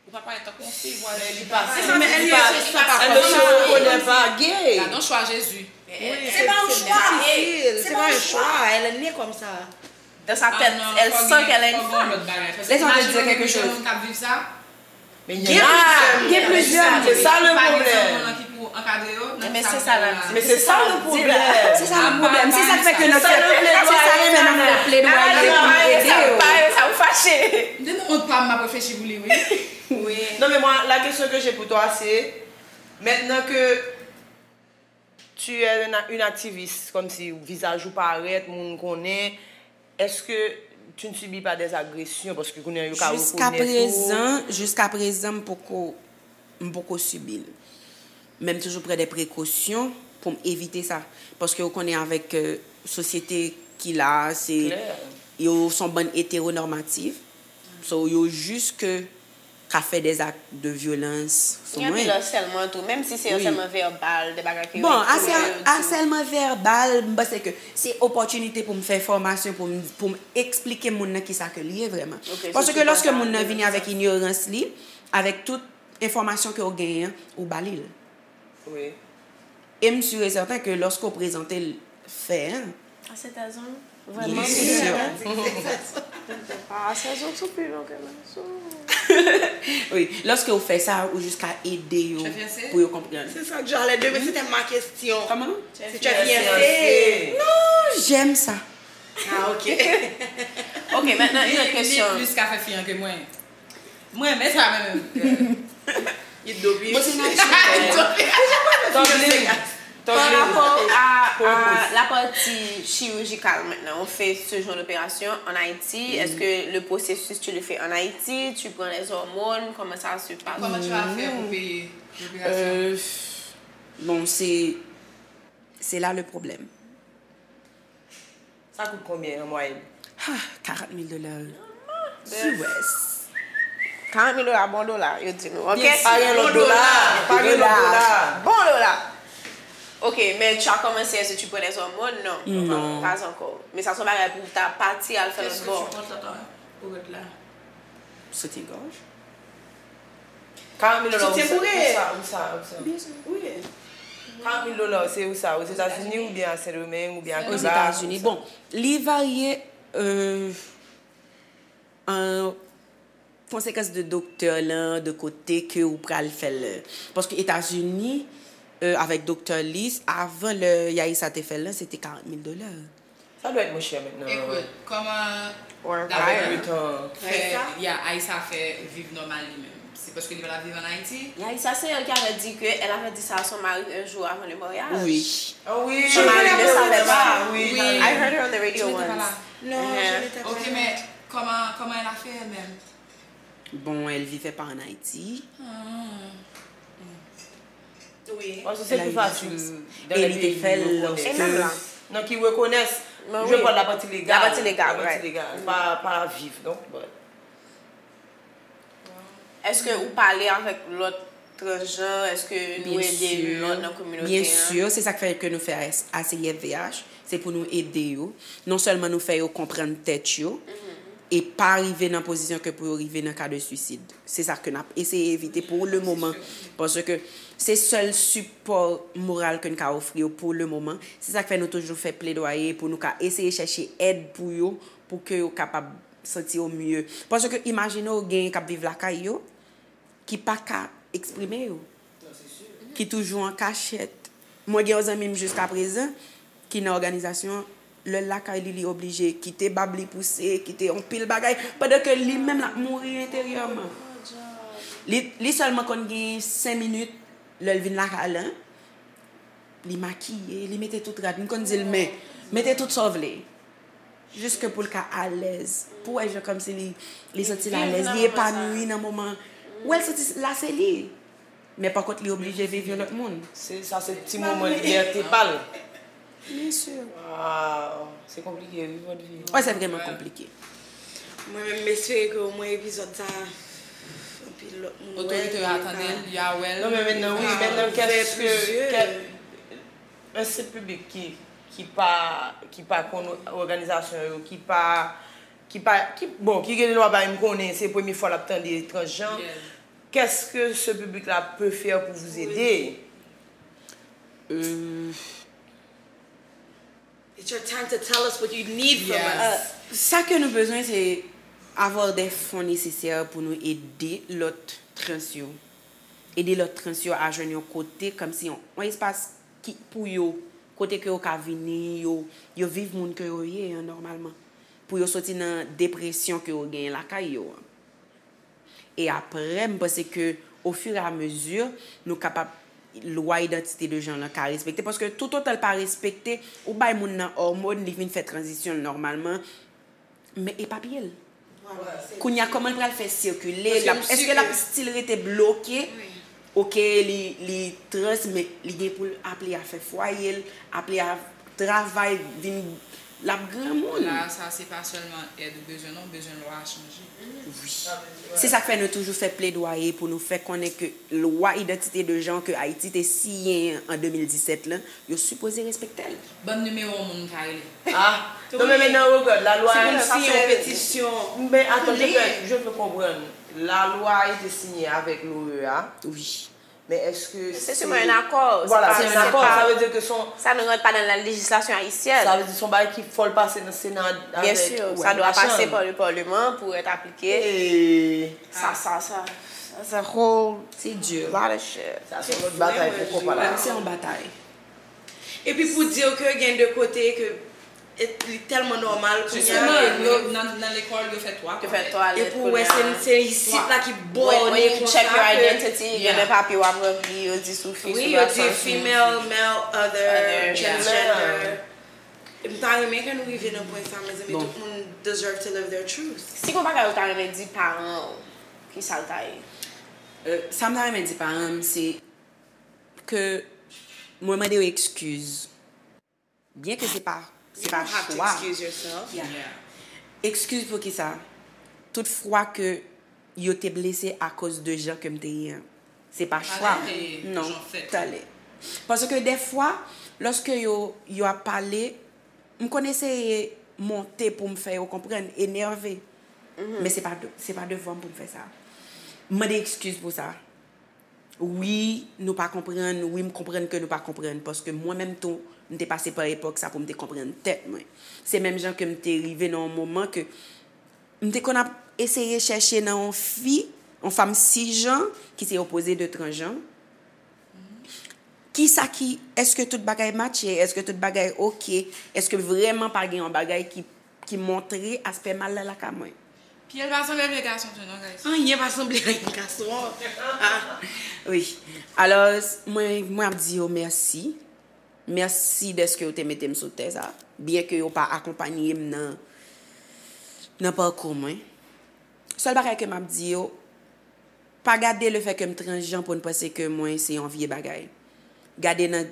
Ou pa parèt tankou yon fi, vwala. Men li pa, li pa, elle ne se reconnaît pas gay. Gade yon chwa Jezi. Se pa yon chwa. Se pa yon chwa. Elle est née comme ça. Dans sa tête, elle sent qu'elle est une femme. Laisse-moi te dire quelque chose. Gen plizyè, gen plizyè. Se sa le pwoblèm. Men se sa le pwoblèm. Se sa le pwoblèm. Se sa k fè ke nou fè, se sa k fè nou fè pledwaye pou nou ede yo. Sa ou fache. M te nan wont pa m, m ap reflechi pou li, wi. Non, mais moi, la question que j'ai pour toi, c'est, maintenant que tu es une, une activiste, comme si vizaj ou parèt, moun konnen, est-ce que tu ne subis pas des agressions? Paske kounye a yo ka rekonèt ou. Jiska prezan, jiska prezan, m poko, m poko sibi l. Men m toujou pran de prekosyon pou m evite sa. Paske ou konnen avèk, euh, sosyete ki la a, se, yo se yon bann eteronòmatif. So, yo jis ke ka fè dèzak de vyolans sou mwen. Gen anpil asèlman tou, menm si se asèlman vèbal, de bagay ke yo ekri, yo di. Bon, asèlman vèbal, m panse ke se opòtinite pou m fè fòmasyon, pou m, pou m eksplike moun nan kisa ke l ye vrèman. Paske lòske moun nan vini avèk inyorans li, avèk tout enfòmasyon ke w genyen an, ou ba li l. E m si e sèten ke lòske w prezante l fè an, A sèt a zon? Vrèman? Byen si. A sèt a zon sou pi lon ke nan sou. Wi, lòske w fè sa, ou jis ka ede yo pou yo konprann. Se sa k jan lè demen se tèm ma kesyon. Kòman? Se tu es fiancé? Non, j'aime ça. Ah, ok. Ok, maintenant une autre question. Li plis ka fè fi an ke mwen. Mwen renmen sa menm. Li do pi. Mwen se natirèl. Tòg li. Tòg li. Par rapport à, à la partie chirurgicale maintenant, on fait ce genre d'opération en Haïti. Est-ce que le processus, tu le fais en Haïti, tu prends les hormones, comment ça se passe? Comment tu vas faire pour payer l'opération? Euh, bon, c'est, c'est là le problème. Sa kout konbyen an mwayèn? Ah, karant mil dola. U S. Karant mil dola, bon dola, yo di nou, ok? Pa gen lòt dola. Pa gen lòt dola. Bon dola. Ok, men tu as commencé, est-ce que tu prends des hormones? Non. Non. Pas encore. Men sa se yon bagay pou w ta pati al fè lòt bò. Est-ce que tu prends ta, ta, pou rèd la? Soutyen gòj. Karant mil dola, ou sa, ou sa, ou sa. Byen si. Wi. Karant mil dola, se ou sa, Ozetazini oubyen a Sendomeng oubyen a Kiba? Ozetazini. Bon, li varye euh, an konsekans de doktè lan, de kote ke ou pral fè l. Paske Etazini, euh, avèk doktè li, avan lè Yaisa te fè l lan, se te karant mil dola. Sa dwe mwen chè mentnan. Ekout, kòman Dayè fè, ya, Aïssa fè viv nòmal li menm? Se paske li pa t ap viv an Ayiti? Aïssa, c'est elle qui avait dit que elle avait dit ça à son mari un jour avant le mariage. Oui. Ah oui, son mari ne savait pas. Oui. I heard her on the radio once. Non, je n'étais pas là. Ok, mais comment, comment elle a fait elle-même? Bon, elle vivait pas en Haïti. Wi. Paske se pi fasil dan lè peyi ki rekonèt. Nan ki rekonèt, je pral la pati legal. La pati legal, pa, pa viv, donk, but. Èske ou pale avèk lòt transjan? Èske nou ede youn lòt nan kominote an? Byen si, se sa k fè ke nou fè A C Y V H, se pou nou ede yo. Non sèlman nou fè yo konprann tèt yo, e pa rive nan pozisyon ke pou yo rive nan ka de swisid. Se sa ke n ap eseye evite pou le moman. Paske se sèl sipò moral ke n ka ofri yo pou le moman. Se sa k fè nou toujou fè pledwaye pou nou ka eseye chèche èd pou yo, pou ke yo kapab santi yo mye. Paske imajine w genyen k ap viv lakay yo, ki pa ka eksprime yo, ki toujou an kachèt. Mwen gen yon zanmi m jiskaprezan ki nan òganizasyon an, lè l lakay li, li oblije kite bab li pouse, kite yon pil bagay, pandan ke li menm l ap mouri enteryèman. Li, li sèlman konn gen senk minit lè l vin lakay la, li makiye, li mete tout rad, m konn di l, men, mete tout sa w vle. Jiske pou l ka alèz. Pou w wè jan kòmsi li, li santi l alèz, li epanoui nan moman. Ou wè l santi la se li. Men pa kont li oblije viv yon lòt moun. Se, sa se ti moman libète pa l. Byen si. Waw, se konplike wi vòt vi. Wi, se vrèman konplike. Mwen menm m espere ke omwen epizòd sa anpil lòt moun wè l. Otorite yo a tande l, yo a wè l. Non men mentnan wi, mentnan kèske, kèske, men se piblik ki ki pa, ki pa konn òganizasyon yo, ki pa, ki pa, ki, bon, ki gen dwa bay m konnen se premye fwa l ap tande transjan. Qu'est-ce que ce public-là peut faire pour vous aider? Euh, It's your time to tell us what you need from us. Sa ke nou bezwen se avoir des fonds nécessaires pou nou ede lòt trans yo. Ede lòt trans yo a jwenn yon kote, kòmsi yon, yon espas ki, pou yo, kote ke yo ka vini, yo, yo viv moun ke yo ye an nòmalman. Pou yo soti nan depresyon ke yo genyen lakay yo an. E aprè, m panse ke, au fur et à mesure, nou kapab, lwa idantite de jan lan ka respekte. Paske toutotan l pa respekte, ou bay moun nan òmòn, li vin fè tranzisyon l nòmalman, men e papye l. Kounye a, kòman l pral fè sikile? Èske l ap still rete bloke? Oke, li, li trans, men li gen pou l aple a fè fwaye l, aple a travay, vin L ap granmoun. La, sa se pa sèlman èd ou bezwen, non, ou bezwen lwa a chanje. Wi. Se sa k fè nou toujou fè pledwaye pou nou fè konnen ke lwa idantite de jan ke Ayiti te siyen an de mil disèt lan, yo sipoze respekte l. Ban m nimewo moun m ka rele. Ah, non, men, men nan regard, la lwa. Si pou m siyen yon petisyon. Men attends, je veux, je veux comprendre. La lwa a été signée avec l'O E A. Wi. Men èske se sèlman yon akò? Voilà, se yon akò. Sa vle di ke son... Sa nou rant pa nan la lejislasyon ayisyèn. Sa vle di son bagay ki fò l pase nan Sena avèk machann. Byen si, sa dwa pase pa le Parlement pou èt aplike. Sa, sa, sa, that's a whole lot of shit. Sa se yon lòt batay pou konpa la. Se yon batay. Epi pou di w ke gen de kote ke li tèlman nòmal kounye a ke yo nan, nan lekòl, yo fè twa twalèt. Epi w wè se, se isit la ki bòne konsa ke... When you check your identity, gen de papye w ap ranpli, yo di si w fi, si w gason, si w fi. Wi, yo di female, male, other, transgender. M ta renmen ke nou rive nan pwen sa, mezanmi, tout moun deserve to live their truth. Si gon bagay ou ta renmen di paran w, ki sa l ta ye? Sa m ta renmen di paran m, se ke mwen mande yo ekskiz. Byen ke se pa, se pa chwa. You don't have to excuse yourself. Yeah. Ekskiz pou kisa? Tout fwa ke yo te blese akoz de jan ke m te ye an, se pa chwa. Non, talè. Paske dèfwa, lòske yo, yo ap pale, m konn eseye monte pou m fè yo konprann, enève. Men se pa de, se pa devan m pou m fè sa. M mande ekskiz pou sa. Wi, nou pa konprann, wi, m konprann ke nou pa konprann, paske mwen menm tou, m te pase pa epòk sa pou m te konprann tèt mwen. Se menm jan ke m te rive nan yon moman ke m te konn ap eseye chèche nan yon fi, yon fanm sisjan, ki se opoze de transjan. Kisa ki, èske tout bagay matche, èske tout bagay oke, èske vrèman pa gen yon bagay ki ki montre aspè mal la lakay mwen. Pye l pa sanble vye gason tou non, guys. Anyen pa sanble anyen gason. Ah. Wi. Alò, mwen, mwen ap di yo mèsi. Mèsi dèske yo te mete m sou tè sa. Byen ke yo pa akonpanye m nan, nan pakou mwen. Sèl bagay ke m ap di yo, pa gade lefè ke m transjan pou n panse ke mwen se yon vye bagay. Gade nan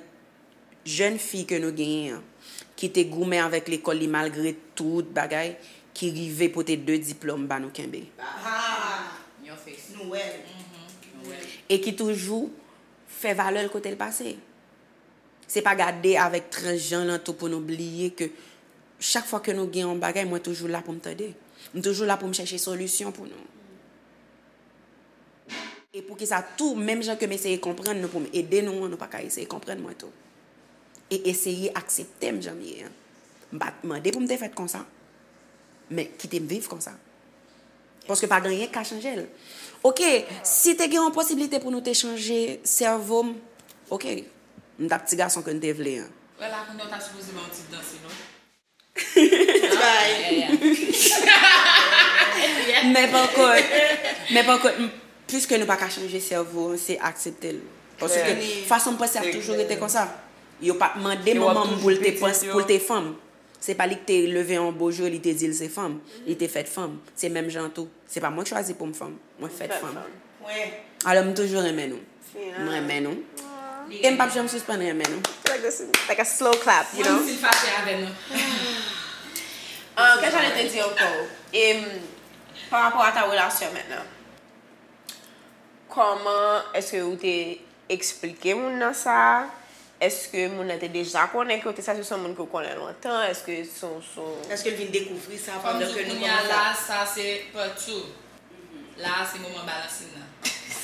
jèn fi ke nou genyen an, ki te goumen avèk lekòl li malgre tout bagay, ki rive pote de diplòm ba nou kenbe. Ah, nou wè l. E ki toujou fè valè l kote l pase. Se pa gade avèk transjan lan tou pou nou bliye ke chak fwa ke nou gen yon bagay, mwen toujou la pou m tande. M toujou la pou m chèche solisyon pou nou. E poukisa tou, menm jan ke m eseye konprann nou pou m ede nou an, nou pa ka eseye konprann mwen tou. E eseye aksepte m jan m ye an. M pa t mande pou m te fèt konsa, men kite m viv konsa. Paske pa gen anyen k ka chanje l. Oke, si te gen yon posiblite pou nou te chanje sèvo m, oke, m t ap ti gason ke n te vle an. Wè la, kounye a w ta sipoze ba yon ti danse, non? Men pa kont, men pa kont, m, piske nou pa ka chanje sèvo an, se aksepte l. Paske fason m panse ap toujou rete konsa. Yo pa t mande manman m pou l te panse, pou l te fanm. Se pa li ki te leve yon bo jou, li te di l se fanm. Li te fèt fanm. Se menm jan tou. Se pa mwen k chwazi pou m fanm. Mwen fèt fanm. Alò, m toujou renmen nou. M renmen nou. E m p ap janm sispann renmen nou. Like this, like a slow clap, you know? Menm si l fache avè nou. Ah, kè jan li te di ankò? E, m, pa rapò a ta relasyon mentnan, kòman èske ou te eksplike moun nan sa? Èske moun nan te deja konnen ke w te sa, se yon moun ke w konnen lontan? Èske se yon, se yon... Èske l vin dekouvri sa pandan ke nou kòmanse? Kòm di kounye a la, sa se part two. La a se moman balansin nan.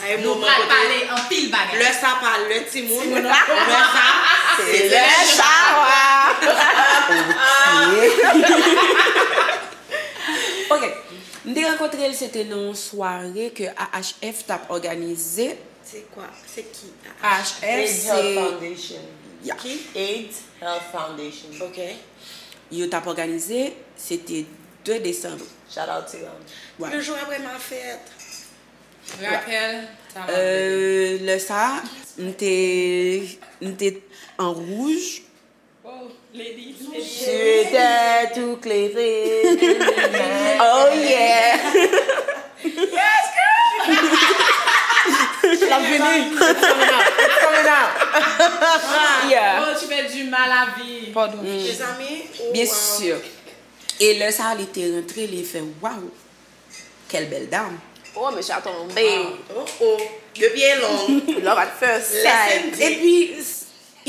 Nou pral pale anpil bagay. Lè sa pa lè timoun, lè sa se lè chawa. Ok. M te rankontre l, se te nan yon sware ke A H F t ap òganize. Se kwa? Se ki? A H F, se AIDS Health Foundation. Ya. Ki? AIDS Health Foundation. Ok. Yo t ap òganize, se te de desanm. Shout out to them. Wè. Le jou apre ma fèt. Rapèl, sa m ap vle. Euh, lè sa, m te, m te an wouj. Oh, lady, lady. Je t'ai tout clairé. Oh yeah. Yes, girl. L ap vini. It's coming out. It's coming out. Yeah. Oh, tu fais du mal à vie. Pardon. Mezanmi, Byen si. E lè sa a, li te rantre, li fè, waw, quelle belle dame. Oh, mesye a tonbe. Oh, oh. De pye long. Love at first Lèse sight. m di. Epi,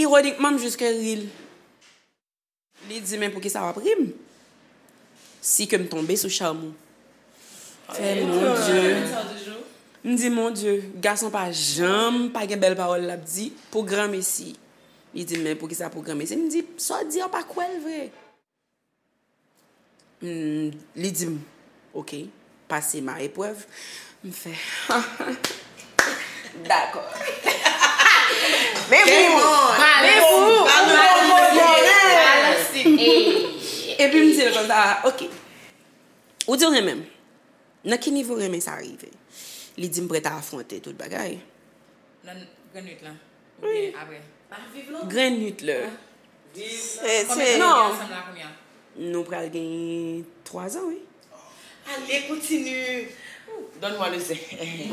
ironikman, m jis ke ri l. Li di, men poukisa w ap ri m? Si ke m tonbe sou cham ou. Fè, mon Dye. M di, mon Dye, gason pa janm pa gen bèl pawòl l ap di pou granmesi. Li di, men poukisa pou granmesi? M di, sa w di a, w pa kwè l vre. M, li di m, oke, pase ma eprèv. M fè, dakò. Men pou, men pou, Epi m di l konsa, oke. Ou di w renmen m. Nan ki nivo renmen sa rive? Li di m prèt a afwonte tout bagay. Nan grenn nwit lan. Oubyen apre. Grenn nwit lè. Se, Konbyen se, tan Non. Nou ansanm la kounye a? Nou pral gen twa zan, wi. Ale, kontinye. Donne-moi le zen.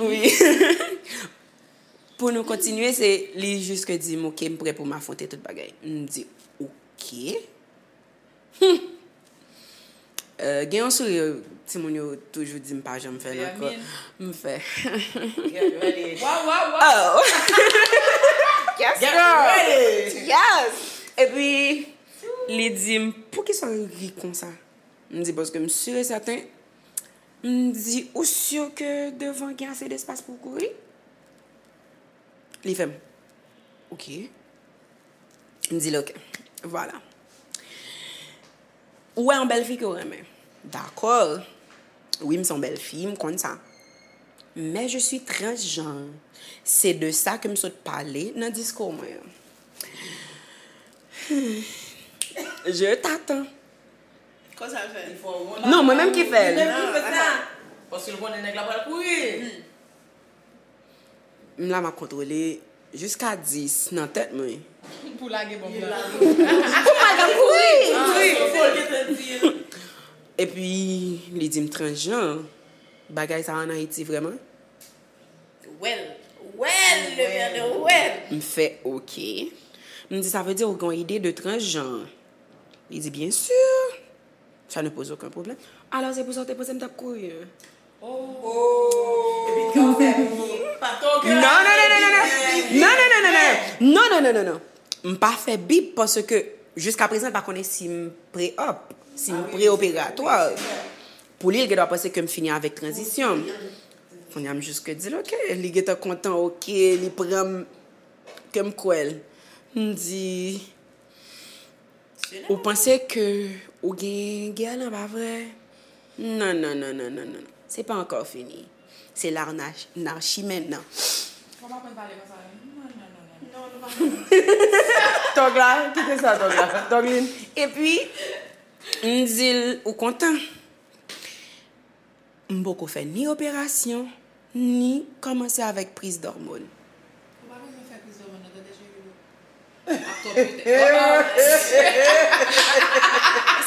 Wi. Pou nou kontinye, se li jis ke di m, oke, m prè pou m afwonte tout bagay. M di, oke. Hmm. Euh, gen yon souri, timoun yo toujou di m pa janm fè l ankò. M fè. Get ready. Waw, waw, waw. Oh! Yes, Get girl. Ready. Yes. Epi, li di m, poukisa w ri konsa? M di, paske m si e sèten. M di, ou si ke devan gen ase despas pou w kouri? Li fè m, oke. M di l, oke. Vwala. Ou wè yon bèl fi ke w renmen. Dakò. Wi, m se yon bèl fi, m konn sa. Mais je suis transgenre. Se de sa ke m sot pale nan diskou mwen an. Hmm. Je t'attends. Konsa l fè. Non, mwen menm ki fè l. Menm ki fè sa. Paske l konnen nèg la pral kouri. M la, m ap kontwole jiska dis nan tèt mwen. Pou lage bonm nan. Pou pa gen kouri. Epi, li di m transjan. Bagay sa ann Ayiti vrèman? Well, well, le merde, well. M fè oke. M di, sa vle di ou gen yon ide de transjan? Li di, bien sûr. Ça ne pose aucun problème. Alors, c'est pour ça que te panse m t ap kouri, hein? Epi kan fè pou pa ton kè. Non, non, non, non, non, non. Non, non, non, non, non. Non, non, non, non, non. M pa fè bip paske jiska prezan l pa konnen si m pre-op, si m pre-operatwa. Pou li, l gen dwa panse ke m fini avèk tranzisyon m. Kounye a, m jis ke di l, oke. Li gentan kontan, oke. Li pran m ke m kwè l. M di, ou panse ke ou gen gè lan, pa vre? Non, non, non, non, non, non. Se pa ankò fini. Se larnachi mentnan. Fò m aprann pale konsa wi. Non, non, non, non. Tòg la, kite sa tòg la. Tòglin. Epi, m di l, ou kontan? M poko fè ni operasyon, ni kòmanse avèk priz dòmòn. Ou pa bezwen fè priz dòmòn nan, tande cheri. Ap twòp pete.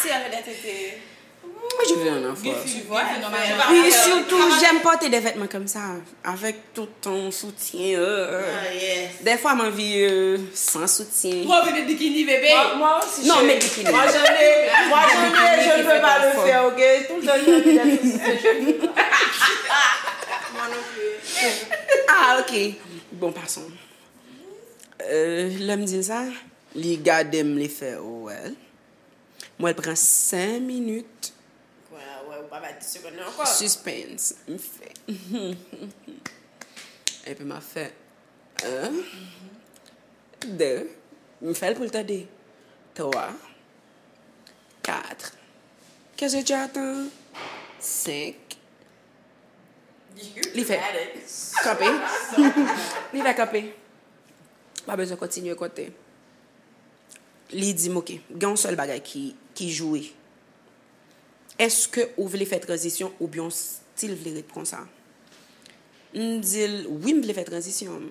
Si avè dè tete. Moi, je veux un enfant. Gen fi, gen fi nòmalman. Puis surtout, j'aime porter des vêtements comme ça, avec tout ton soutien. Euh. Ah, yes. Des fois, m anvi euh, sans soutien. Ou anvi met bikini, bebe? Moi, moi aussi, Non, chérie. mais bikini. Moi, jamais, moi, jamais, je ne peux pas le faire, ok? Tout le temps, je vais mettre des soutien-gorge. Moi non plus. Ah, ok. Bon, passons. Euh, lè m di l sa, li gade m, li fè, oh, well. Mwen pran senk minit. Wè, wè, ou pa bay dis segonn nan ankò. Suspense. M fè. Epi m ap fè. En. De. M fè l pou l tande. Twa. Kat. Qu'est-ce que tu attends? Senk. Li fè. Kanpe. Li fè kanpe. Pa bezwen kontinye konte. Li di m, oke, gen yon sèl bagay ki, ki joure. Èske ou vle fè tranzisyon oubyen w still vle ret konsa? M di l, wi, m vle fè tranzisyon.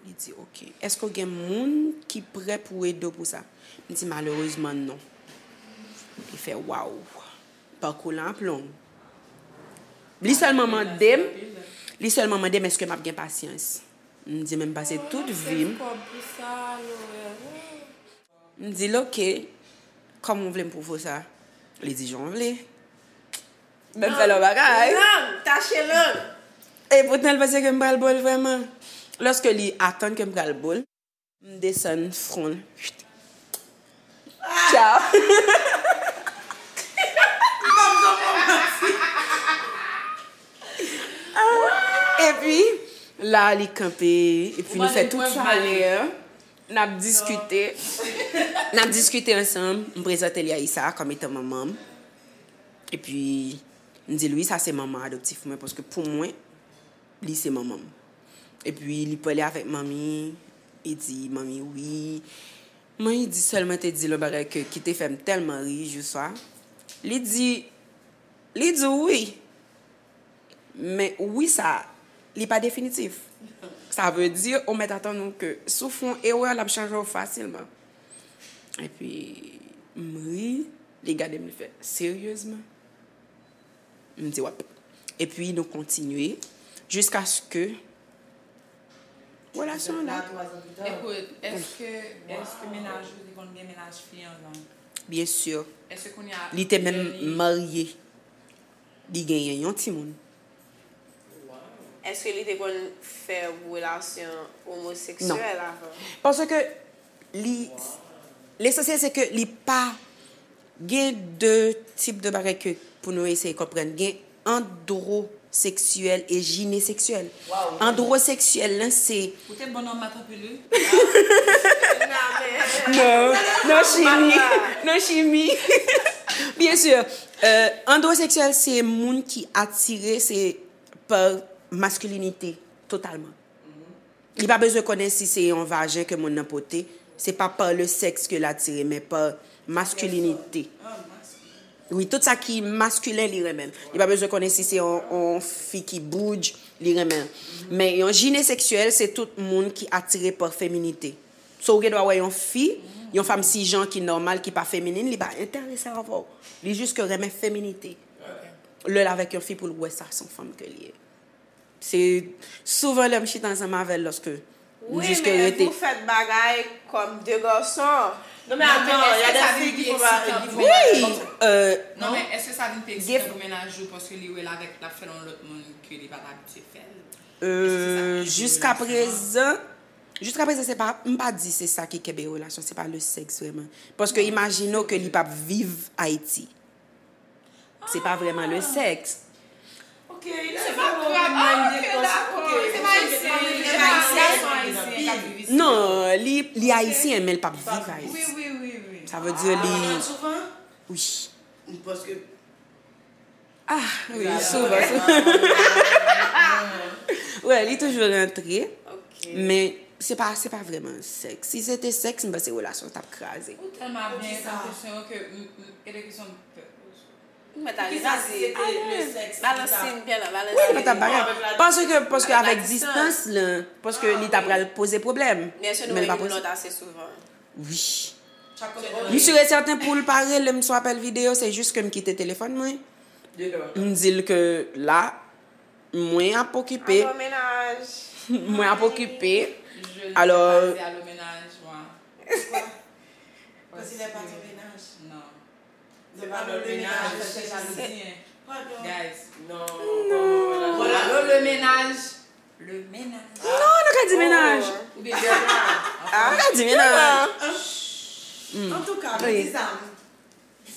Li di, oke, èske w gen moun ki prè pou ede w pou sa? M di, malerezman, non. Li fè, waw, pakou lan ap long. Li sèlman mande m, li sèlman mande m èske m ap gen pasyans. M di, men m pase tout vi m. M di l, oke, Kòman w vle m pwouve w sa? Li di, jan w vle. Ban m fè lòt bagay. Lang, tache lang. E poutan, l panse ke m pral bo l vrèman. Lòske li atann ke m pral bo l, m desann fwon l. Tchaw. Epi, la, li kanpe, epi nou fè tout sa lè. N ap diskite. N ap diskite ansanm. M prezante li a Issa kòm etan manman m. Epi, m di l, wi, sa se manman adoptif mwen, paske pou mwen, li se manman m. Epi, li pale avèk manmi, li di, manmi, wi. Manmi di sèlman te di l yon bagay ke, ki te fè m tèlman ri, jou swa. Li di, li di w wi. Men wi sa, li pa definitif. Sa vle di, ou mèt atann ou ke si w fè yon erè, l ap chanje w fasilman. Epi, m ri, li gade m, li fè, seryezman? M di, w ap. Epi, nou kontinye jiskaske relasyon an la. Ekout, èske, èske mennaj ou te konn gen mennaj fi anvan? Byen si. Èske kounye a, li te menm marye. Li genyen yon timoun. Èske li te konn fè relasyon omoseksyèl avan? Paske li, lesansyèl se ke li pa gen de tip de bagay ke pou nou eseye konprann. Gen androseksyèl e jineseksyèl. Androseksyèl lan se Ou te bon nan mat anpil, wi. Non, non, chimi. Non, chimi. Byen si. Euh, androseksyèl se moun ki atire, se pa maskilinite, totalman. Li pa bezwen konnen si se yon vajen ke moun nan pote. Se pa pa le sexe ke l atire, men pa maskilinite. Wi, tout sa ki maskilen, li renmen. Li pa bezwen konnen si se yon, yon fi ki boudj, li renmen. Men yon jineseksyèl, se tout moun ki atire pa feminite. So, ou gen dwa wè yon fi, yon fanm sijan ki nòmal, ki pa feminin, li pa enterese avè w. Li jis ke renmen feminite. Lè l avèk yon fi pou l wè sa se yon fanm ke li ye. Se souvan lè m chita ansanm avè l, lòske m jis ke rete. Wi, men vous faites bagay kòm de gason. Non, men atann, y a des filles qui font pas, qui font pas. Wi, euh, non, men èske sa vin pi eksitan pou mennaj ou paske li wè l avèk, l ap fè l yon lòt moun ke li pa t abitye fè l? Euh, jiska prezan, jiska prezan, se pa, m pa di se sa ki kenbe relasyon, se pa le sexe vrèman. Paske imajine w ke li p ap viv Ayiti. Se pa vrèman le sexe. Ok, se pa grave. Ah, ok, dakò. Se pa ayisyen, se pa ayisyen. Non, li, li ayisyen, men l p ap viv Ayiti. Wi, wi, wi, wi. Sa vle di li. Wi. Paske Ah, wi, souvan, souvan. Wè, li toujou rantre. Ok. Men se pa, se pa vrèman sèks. Si se te sèks, m panse relasyon t ap kraze. Ou tèlman ap gen enpresyon ke m, m, enpresyon m pè. Mwen ta resi. Balans li, m pè la, balans li. Wi, mwen t ap bagay. Paske, paske avèk distans lan, paske li ta pral poze pwoblèm. Men l pa poze. Wi. M si e sèten pou l pa rele m sou apèl videyo, se jis ke m kite telefòn mwen. M di l ke la, mwen ap okipe. Mwen ap okipe. Alò. Quand il est pas ton ménage. Non. Se pa lòt mennaj. Guys. Non. Voilà, le ménage. Le ménage. Non, nou ka di mennaj. Oubyen. Nou ka di mennaj. Antouka, men di sa.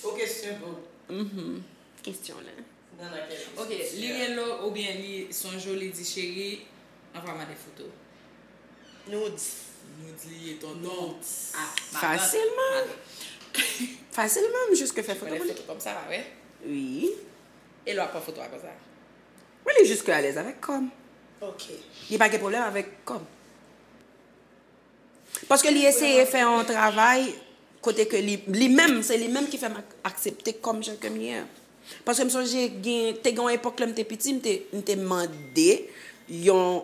Ok, se bon. Kesyon la. Ok, li rele w oubyen li sonje w, li di, cheri, anvwa m de foto. Nudes. Nudes li ye, tonton. Nudes. Ah, madam. Fasilman. Madam. Fasilman, m jis ke fè foto pou li. Foto kòmsa, pa vre? Wi. E lè w ap pran foto a konsa? Wi, li jis ke alèz avèk kò m. Ok. Li pa gen pwoblèm avèk kò m. Paske li eseye fè yon travay kote ke li, li menm, se li menm ki fè m ak-, aksepte kòm jan ke m ye a. Paske m sonje gen, te gen yon epòk lè m te piti, m te, m te mande yon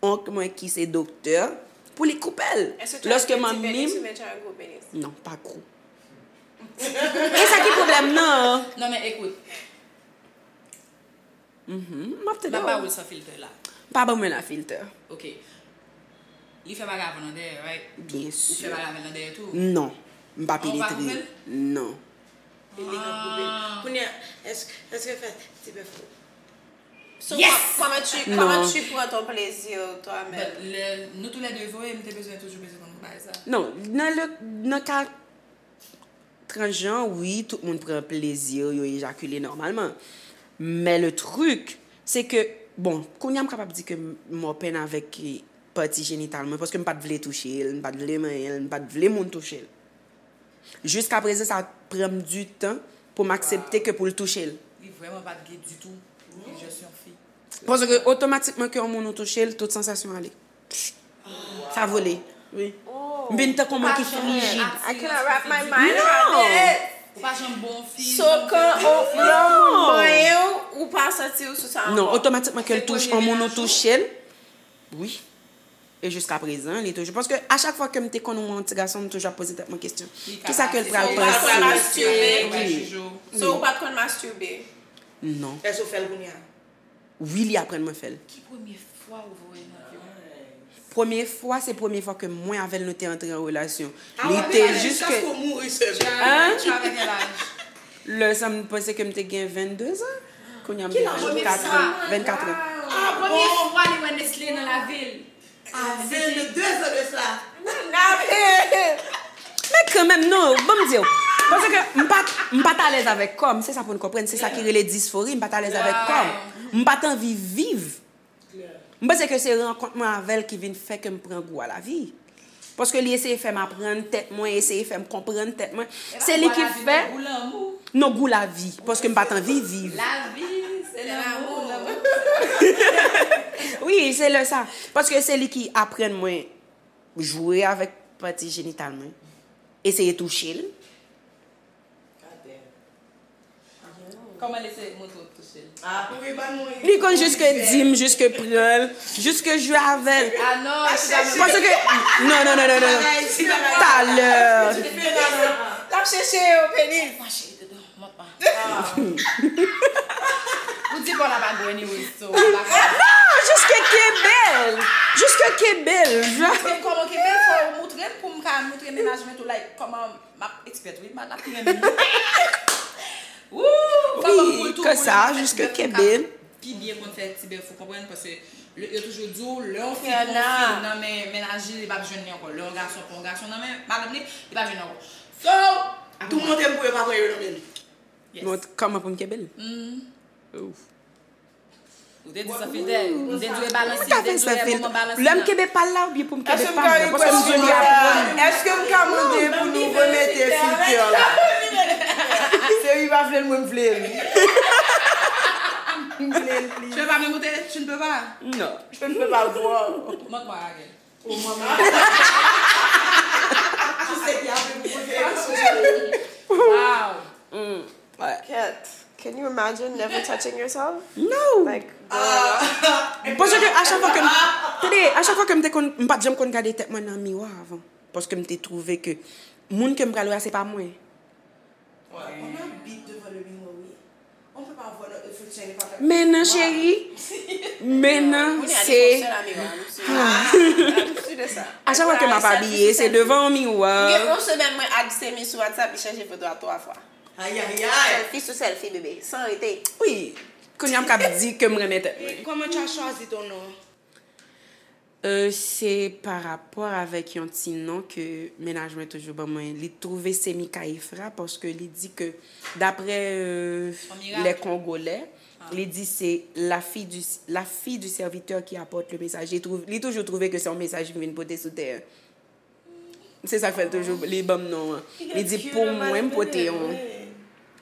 onk mwen ki se doktè pou li koupe l. Lòske manmi m. Non, pa gwo. E sa ki pwoblèm nan? Non, men ekout. M ap tande w. M ap ba w l san filtè la. Pa ban mwen la filtè. Ok. Li fè bagay avè w nan dèyè, right? Byen si. Ou fè bagay avè l nan dèyè tou? Non. M pa penetre. Ou pa koupe l? Non. Èske fè ti bèf ou? So, yes! Comment tu, comment tu prends ton plaisir toi-même? But le, nous tous les deux vre, m te bezwen toujou bezwen konn bagay sa. Non, nan le nan ka transjan, wi, tout moun pran plezi, yo ejakile nòmalman. Men le truc, se ke, bon, kounye a m kapab di ke m open avèk pati jenital mwen, paske m pa t vle touche l, m pa t vle manyen l, m pa t vle moun touche l. Jiska prezan, sa pran m du tan pou m aksepte ke pou l touche l. Li vrèman pa t ge ditou. Li just yon fi. Paske otomatikman ke yon moun ou touche l, tout sansasyon ale. Sa vole. Wi. M vin tankou yon moun ki frijid. I cannot wrap my mind around it. Ou pa janm bon fi. So kan yon moun manyen w, ou pa santi w sou sa ankò. Non, otomatikman ke l touche, yon moun ou touche l, wi. E jiska prezan, li toujou. Paske a chak fwa ke m te konn wè yon ti gason, m toujou ap poze tèt mwen kesyon. Kisa ke l pral panse? So ou pa t konn masturbe? Non. Èske w fè l kounye a? Wi, li aprann mwen fè l. Ki premye fwa ou voye nan vi w? Premye fwa, se premye fwa ke mwen avè l nou te antre an relasyon. Li te jis ke. Hein? Lè sa m panse ke m te gen vennde zan. Kounye a m gen vennkat an. Vennkat an. Premye fwa li wè Nestlé nan lavi l. Vennde zan de sa. Men kanmenm, non, ban m di w. Paske m pa, m pa t alèz avèk kò m, se sa pou n konprann, se sa ki rele disfori, m pa t alèz avèk kò m. M pa t anvi viv. M panse ke se rankont mwen avè l ki vin fè ke m pran gou a lavi. Paske li eseye fè m aprann tèt mwen, eseye fè m konprann tèt mwen. Se li ki fè. Non, gou lavi. Paske m pa t anvi viv. Lavi, se lanmou. Wi, se lè sa. Paske se li ki aprann mwen jwe avèk pati jenital mwen. Eseye touche l. Kòman l eseye montre w touche l? Li konn jiske di m, jiske pran l, jiske jwe avè l. Paske, non, non, non, non, non. Talè. L ap chèche yon penis. Ou di bò la pa gwo anyway, so. Non, jiske kenbe l. Jiske kenbe l. Moutre m kòman kenbe l, fò ou moutre m pou m ka moutre mennaj mwen tou, like, kòman m ap expert, wi, m ap ap renmen. Woo! Fò m pou l tou pou li, sa, jiske kenbe l. Pi byen konn fè ti bèf ou konprann, paske yo toujou di w, lè yon fi pran yon fi nan men mennaj li, li p ap jwenn li ankò. Lè yon gason pran yon gason nan men madanm li, li p ap jwenn li ankò. So, tou montre m pou yo pa pran yo nan men li. Mwen, kòman pou m kenbe l? Ou te di san filtè, m te di w e balansi, m te di w e moman balansi. Lè m kenbe pa l la oubyen pou m kenbe pa l la? Paske m di w li aprann. Èske m ka mande pou nou remete filtè la? Se li pa vle l, mwen m vle l. M vle l plis. Tu veux pas me monter? Tu ne peux pas. Non. Je ne peux pas voir. Montre-moi la gueule. Wow. Mm. What? Cat, can you imagine never touching yourself? No. Like, girl. Paske a chak fwa ke m, tande, a chak fwa ke m te konn, m pa t janm konn gade tèt mwen nan miwa avan. Paske m te twouve ke moun ke m pral wè a se pa mwen. On habite devant le miroir, oui. On peut pas voir notre reflection, il est pas. Men nan, cheri. Men nan, se. A chak fwa ke m ap abiye, se devan yon miwa. Gen yon semèn, mwen add Semi sou WhatsApp, li chanje foto a twa fwa. Ayayay. Selfie sou selfie, bebe. San rete. Wi. Kounye a m ka di ke m renmen tèt mwen. Comment tu as choisi ton nom? Euh, se pa rapò avèk yon ti non ke mennaj mwen toujou ban mwen. Li twouve se Mikaefra paske li di ke, daprè euh, les Congolais, li di se la fille du, la fille du serviteur qui apporte le message. Li, twouv, li toujou twouve ke se yon mesaj ki vin pote sou tè. Se sa k fè l toujou, li ban m non an. Li di pou mwen, m pote yon.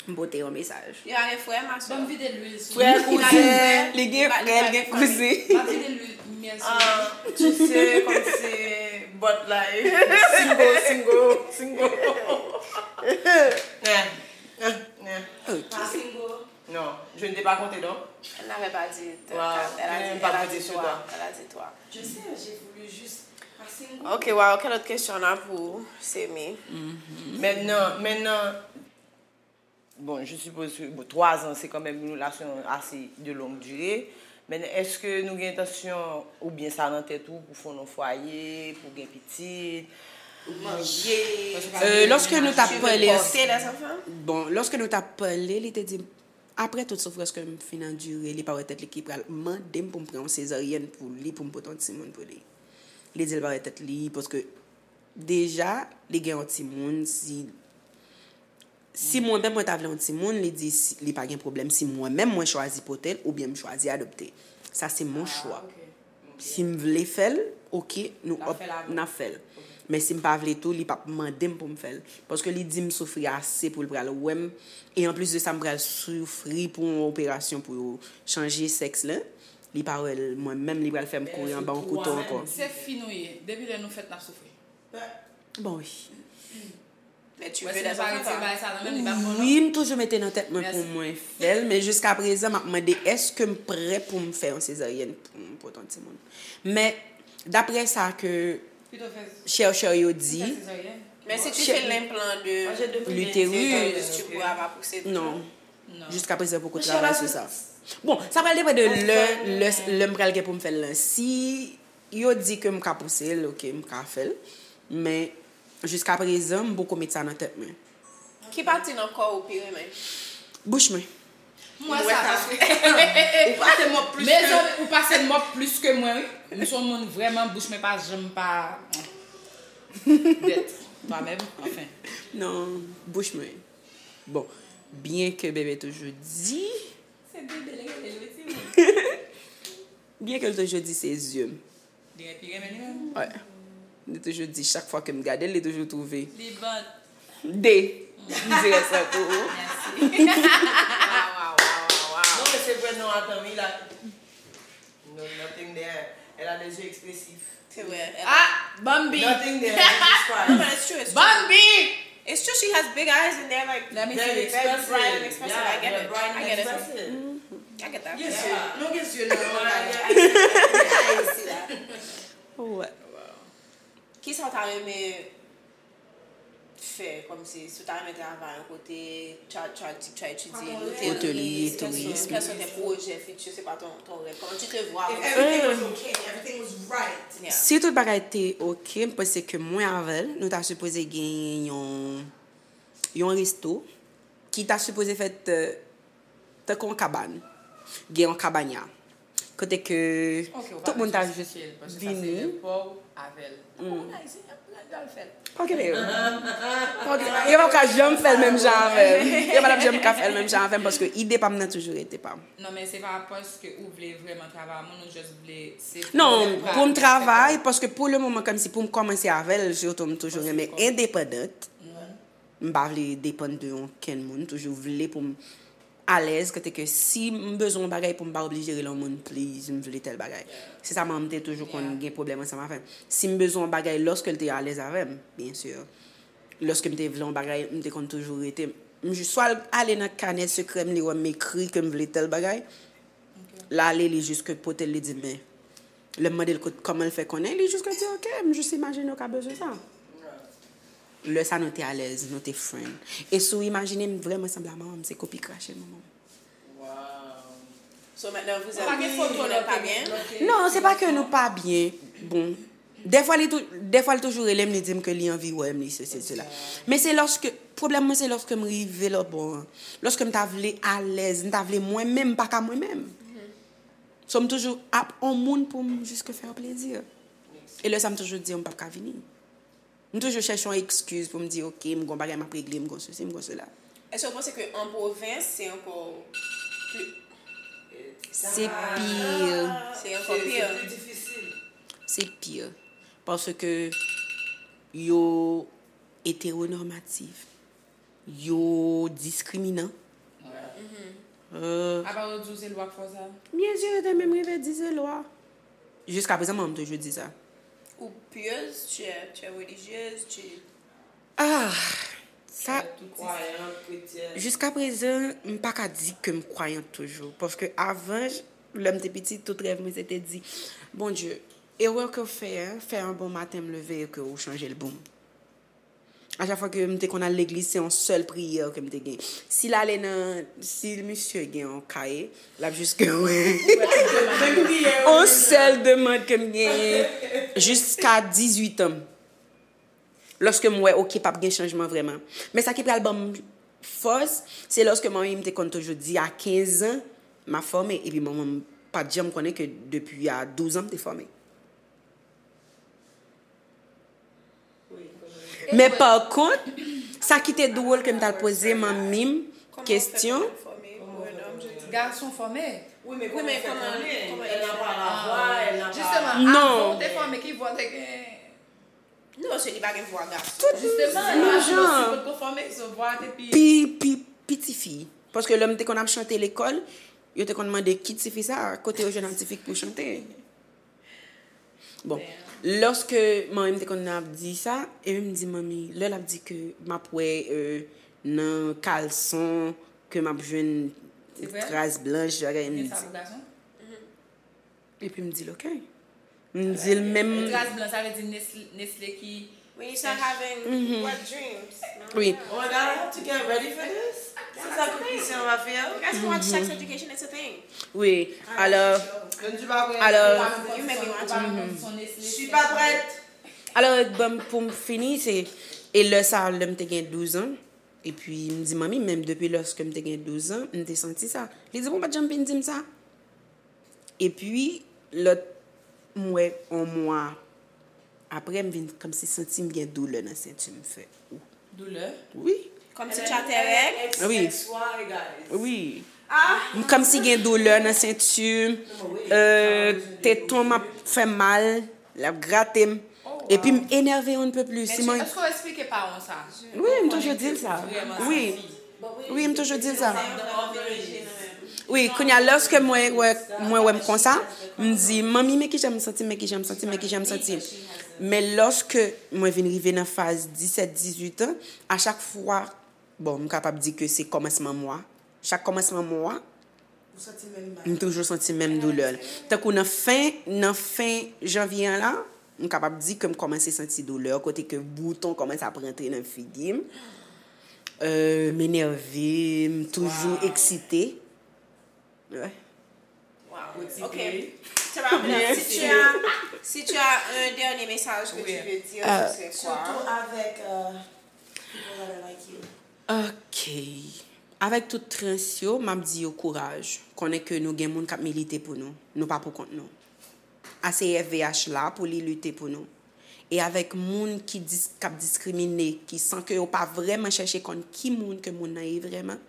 M pote yon mesaj. Li pa gen frè, ma sè. Ban m vide lwil sou li. Frè, kouzen. Li gen frè, li gen kouzen. M ap vide lwil myèl sou li. Ah, tu sais, comme c'est bòt la. Single, single, single. Eh, eh, eh. Ok. Pas single. Non, je ne t'ai pas compté, non? Elle n'avait pas dit. Wow, elle a dit, elle a dit toi. Elle a dit toi. Je sais, j'ai voulu juste pas single. Ok, wow, quelle autre question on a pour Semi? Maintenant, maintenant, Bon, je suppose que, bon, twa zan, se kanmenm yon relasyon ase de longue durée. Men èske nou gen entansyon, oubyen sa nan tèt ou, pou fonde yon fwaye, pou gen pitit, pou manje? Euh, lòske nou t ap pale, bon, lòske nou t ap pale, li te di m, Apre tout soufrans ke m fin andire, li pa wè tèt li ki pral mande m pou m pran yon sezaryèn pou li, pou m pote yon timoun pou li. Li di l pa wè tèt li, paske deja, li gen yon timoun, si, si mwen menm mwen ta vle yon timoun, li di si, li pa gen pwoblèm si mwen menm mwen chwazi pote l oubyen m chwazi adopte. Sa se mon chwa. Si m vle fè l, oke, nou n ap fè l. Men si m pa vle tou, li p ap mande m pou m fè l. Paske li di m soufri ase pou l pral wè m. E anplis de sa, m pral soufri pou yon operasyon pou yo chanje sèks la. Li pa wè l, mwen menm, li pral fè m kouri anba yon kouto ankò. Se fi nou ye. Depi lè nou fèt, n ap soufri. Bon, wi. Wi, m toujou mete nan tèt mwen pou mwen fè l, men jiska prezan, m ap mande èske m prè pou m fè yon sezaryèn pou m pote yon timoun. Men, daprè sa ke chèchè yo di, Mais si tu fais l'implant de l'utérus, tu pourras pas pousser. Non. Jiska prezan, poko travay sou sa. Bon, sa pral depann de lè, lè, lè m pral gen pou m fè l lan. Si yo di ke m ka pouse l, oke, m ka fè l. Men, jiska prezan, m poko met sa nan tèt mwen. Ki pati nan kò ou pi renmen? Bouch mwen. M wè sa paske ou pase mòp plis ke mezanmi, ou pase mòp plis ke mwen, wi. M se yon moun vrèman, bouch mwen pa janm pa dèt. Twa menm, anfen. Non, bouch mwen. Bon, byen ke bebe toujou di. Se bebe l rele l, wi, timoun. Byen ke l toujou di se zye m. Li pi renmen li menm. Wi. Li toujou di, chak fwa ke m gade l, li toujou twouve. Li bon. De. M dirèk sa pou ou. Mèsi. Waw, waw, waw, waw. Non, men se vre non, atan, wi, la. No, nothing there. Elle a des yeux expressifs. C'est vrai. Ah, Bambi. Nothing there. Jesus Christ. No, but it's true. It's true. Bambi. It's true. She has big eyes and they're like Let me very, see. very bright and expressive. Yeah, I get they're it. Bright and I get it. expressive. I get that. Yes, Yeah. Non, gen zye nan. I see that. Wè. Kisa w ta renmen fè kòmsi si w ta renmen travay yon kote, try, try, try etidye, Hôtellerie, tourisme. Quels sont tes projets futurs, c'est quoi ton, ton rêve? Comment tu te vois? If everything was okay, everything was right. Yeah. Si tout bagay te oke, m panse ke mwen avè l, nou ta sipoze gen yon, yon resto ki ta sipoze fèt euh, tankou yon kabann. Gen yon kabanya. Kote ke tout moun ta jis vini. Paske sa se lè pa w avè l. Ou Ayisyen, y ap pran l fè l. Pa okipe yo. Pa okipe. Yo p ap ka janm fè l menm jan avè m. Yo pa t ap janm ka fè l menm jan avè m paske ide pa m nan toujou rete pa m. Non, men se pa paske ou vle vrèman travay ak moun, ou just vle se Non, pou m travay, paske pou le moman, kòmsi pou m kòmanse avè l, sitou m toujou renmen endepandant. M pa vle depann de okenn moun, m toujou vle pou m alèz, kote ke si m bezwen yon bagay pou m pa oblije rele yon moun, please, m vle tèl bagay. Se sa manman m te toujou konn gen pwoblèm ansanm avè m. Si m bezwen yon bagay, lòske l te alèz avè m, byen si. Lòske m te vle yon bagay, m te konn toujou rete. M jis swa l ale nan kanè sekrè m, li wè m ekri ke m vle tèl bagay, l ale, li jis ke pote l, li di m, men. Lè m mande l kot, kòman l fè konnen, li jis ke di, oke, m jis imajine w ka bezwen sa. Lè sa nou te alèz, nou te friend. E si w imajine m vrèman sanble a manman m, se kopi krache manman m. So maintenant vous êtes, vous n'êtes pas bien? Non, se pa ke nou pa byen. Bon, dèfwa li tou, dèfwa l toujou rele m, li di m ke li anvi wè m, li sesi, sela. Men se lòske, pwoblèm mwen se lòske m rive lòt bò an. Lòske m ta vle alèz, m ta vle mwen menm, m pa ka mwen menm. So m toujou ap on moun pou m jis ke fè yo plezi. E lè sa m toujou di yo m p ap ka vini. M toujou chèche yon ekskiz pou m di, oke, m gon bagay m ap regle, m gon sesi, m gon sela. Èske w panse ke an pwovens se ankò pli... Se pi. Se ankò pi. Se pli difisil. Se pi. Paske yo etewonormatif. Yo diskriminan. Apa yo di w se lwa k fè w sa? Byen si yo te menm rive di se lwa. Jiska prezan, manman m toujou di sa. Ou pieuse, tu es, tu es religieuse, tu... Ah, sa, Kwayan, kretyèn. Jiska prezan, m pa ka di ke m kwayant toujou. Paske avan, lè m te piti, tout rèv mwen se te di, Bondye, erè ke w fè a, fè yon bon maten m leve e ke ou chanje l pou m. A chak fwa ke m te konn al legliz, se yon sèl priyè ke m te gen. Si l ale nan, si misye gen yon kaye, l ap jis ke yon sèl demann ke m genyen jiska dizuit an. Lòske m wè, oke, p ap gen chanjman vrèman. Men sa ki pral ban m fòs, se lòske manmi m te konn toujou di a kenz an, m ap fòme, epi manman m pa t janm konnen ke depi a douz an m te fòme. Men pa kont, sa ki te dwòl ke m t al poze manmi m kesyon. Gason fòme. Wi, men kòman fòme? Elle n'a pas la voix, elle n'a pas. Jisteman, avan ou te fòme, ki vwa w te gen? Non, se li pa gen vwa gason. Jisteman, non, jan. Kot ko fòme, so vwa te pi. Pi, pi, pi tifi. Paske lè m te konn ap chante lekòl, yo te konn mande ki tifi sa, kote yo jwenn yon tifi k pou chante. Bon, lòske manmi m te konn ap di sa, epi m di manmi, lè l ap di ke m ap wè euh, nan kalson, ke m ap jwenn tras blanch, bagay m di. Epi m di l ok. M di l menm. Tras blan, sa vle di Nestle ki. When you start having wet dreams. Wi. Oh my God, I have to get ready for this. C'est ça que Christian va faire. You guys can watch Sex Education, it's a thing. Wi. Alors, Je ne suis pas prête. alors, You make me want to. Je suis pas prête. alors, bon, pou m fini, se. E lè sa, lè m te gen douz an, epi m di manmi, menm depi lòske m te gen douz an, m te santi sa. Li di, bon, ou pa t janm vin di m sa. Epi, lòt, m wè, yon mwa apre, m vin kòmsi santi m gen doulè nan senti m fè. Doulè? Wi. Kòmsi tu as tes règles. Wi. X Y, guys. Wi. M kòmsi gen doulè nan senti m. Euh, teton m ap fè mal, l ap grate m. Epi m enève on ne peut plus. Si mwen. Èske w eksplike paran sa? Wi, m toujou di l sa. Vrèman Wi. santi. Wi, m toujou di l sa. Wi, kounye a, lòske mwen wè, mwen wè m konsa, m di, manmi, men kijan m santi m, men kijan m santi m, men kijan m santi m. Men lòske mwen vin rive nan faz disèt, dizuit an, a chak fwa, bon, m kapab di ke se kòmansman mwa. Chak kòmansman mwa, Ou santi menm m toujou santi menm doulè. Tankou nan fen, nan fen janvye an la, m kapab di ke m kòmanse santi doulè, kote ke bouton kòmanse ap rantre nan figi m. Euh, m enève, m toujou eksite. Wi. Wow. Ok. Tababla, si tu as, si tu as un dernier message que tu veux dire, ce serait quoi? Surtout avec euh, people that are like you. Ok. Avèk tout trans yo, m ap di yo kouraj. Konnen ke nou gen moun k ap milite pou nou. Nou pa pou kont nou. A C F V H la pou li lite pou nou. E avèk moun ki dis, k ap diskrimine, ki san ke yo pa vrèman chèche konn ki moun ke moun nan ye vrèman,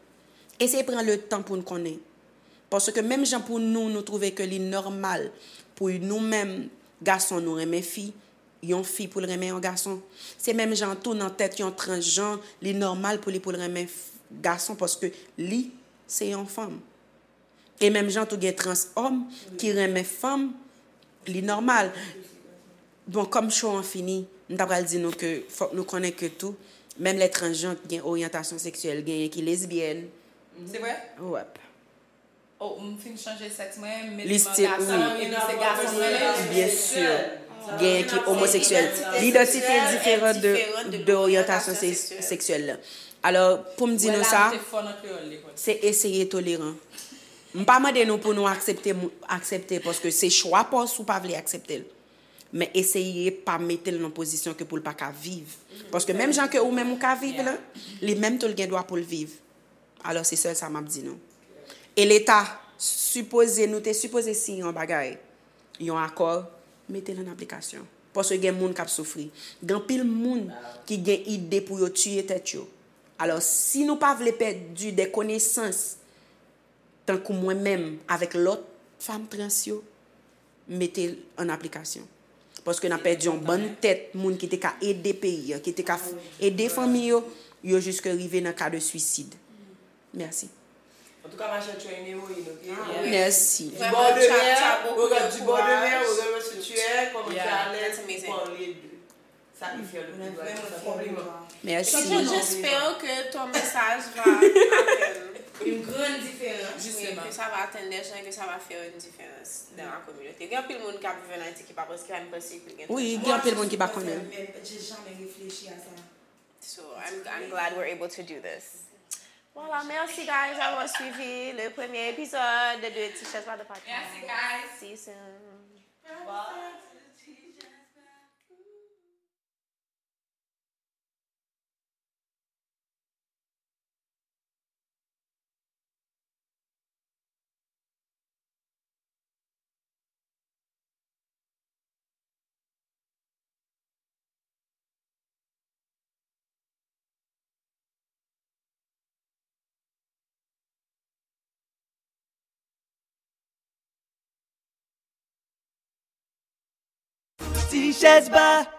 eseye pran le tan pou n konnen. Paske menm jan pou nou, nou twouve ke li nòmal pou nou menm gason nou renmen fi, yon fi pou l renmen yon gason. Se menm jan tou nan tèt yon transjan, li nòmal pou li pou l renmen gason paske li se yon fanm. E menm jan tou gen trans òm ki renmen fanm, li nòmal. Bon, kòm show an fini, m ta pral di nou ke fòk nou konnen ke tou, menm lè transjan gen oryantasyon seksyèl, genyen ki lesbyèn. Se vre? Wèp. Oh, m fin chanje sèks mwen, m met Li m an still, gason, wi. Li se gason mwen ye. Byen si. Genyen ki omoseksyèl. Lidantite diferan de, de oryantasyon se, seksyèl la. Alò, pou m di nou sa, Te fò nan kreyòl lekòl. Se eseye toleran. M pa mande nou pou nou aksepte, aksepte paske se chwa pa w si w pa vle aksepte l. Men eseye pa mete l nan pozisyon ke pou l pa ka viv. Paske menm jan ke ou menm ou ka viv la, li menm tou l gen dwa pou l viv. Alò se sèl sa m ap di nou. E Leta sipoze, nou te sipoze siyen yon bagay, yon akò, mete l an aplikasyon. Paske gen moun k ap soufri. Gen anpil moun ki gen ide pou yo tiye tèt yo. Alò si nou pa vle pèdi de konesans, tankou mwen menm avèk lòt fanm trans yo, mete l an aplikasyon. Paske n ap pèdi yon bann tèt moun ki te ka ede peyi an, ki te ka ede fanmi yo, yo jiske rive nan ka de swisid. Mèsi. En tout cas, ma chère, tu es une héroïne, ok? Mèsi. Du bord de mer, regarde du bord de mer, regarde ce que tu es, comment tu es à l'aise pour parler de ça qui fait le plus grand. Compliment. Mèsi. J'espère que ton message va atteindre Une grande différence. Oui, que ça va atteindre des gens et que ça va faire une différence dans la communauté. Il y a plein de monde qui vivent en Haïti qui pas parce qu'il y a une pensée qui Oui, il y a plein de monde qui pas connaît. J'ai jamais réfléchi à ça. So I'm, I'm glad we're able to do this. Voilà, merci guys d'avoir suivi le premier épisode de Tichèz la de podcast. Merci, guys. See you soon. Bye. Ti chèz ba.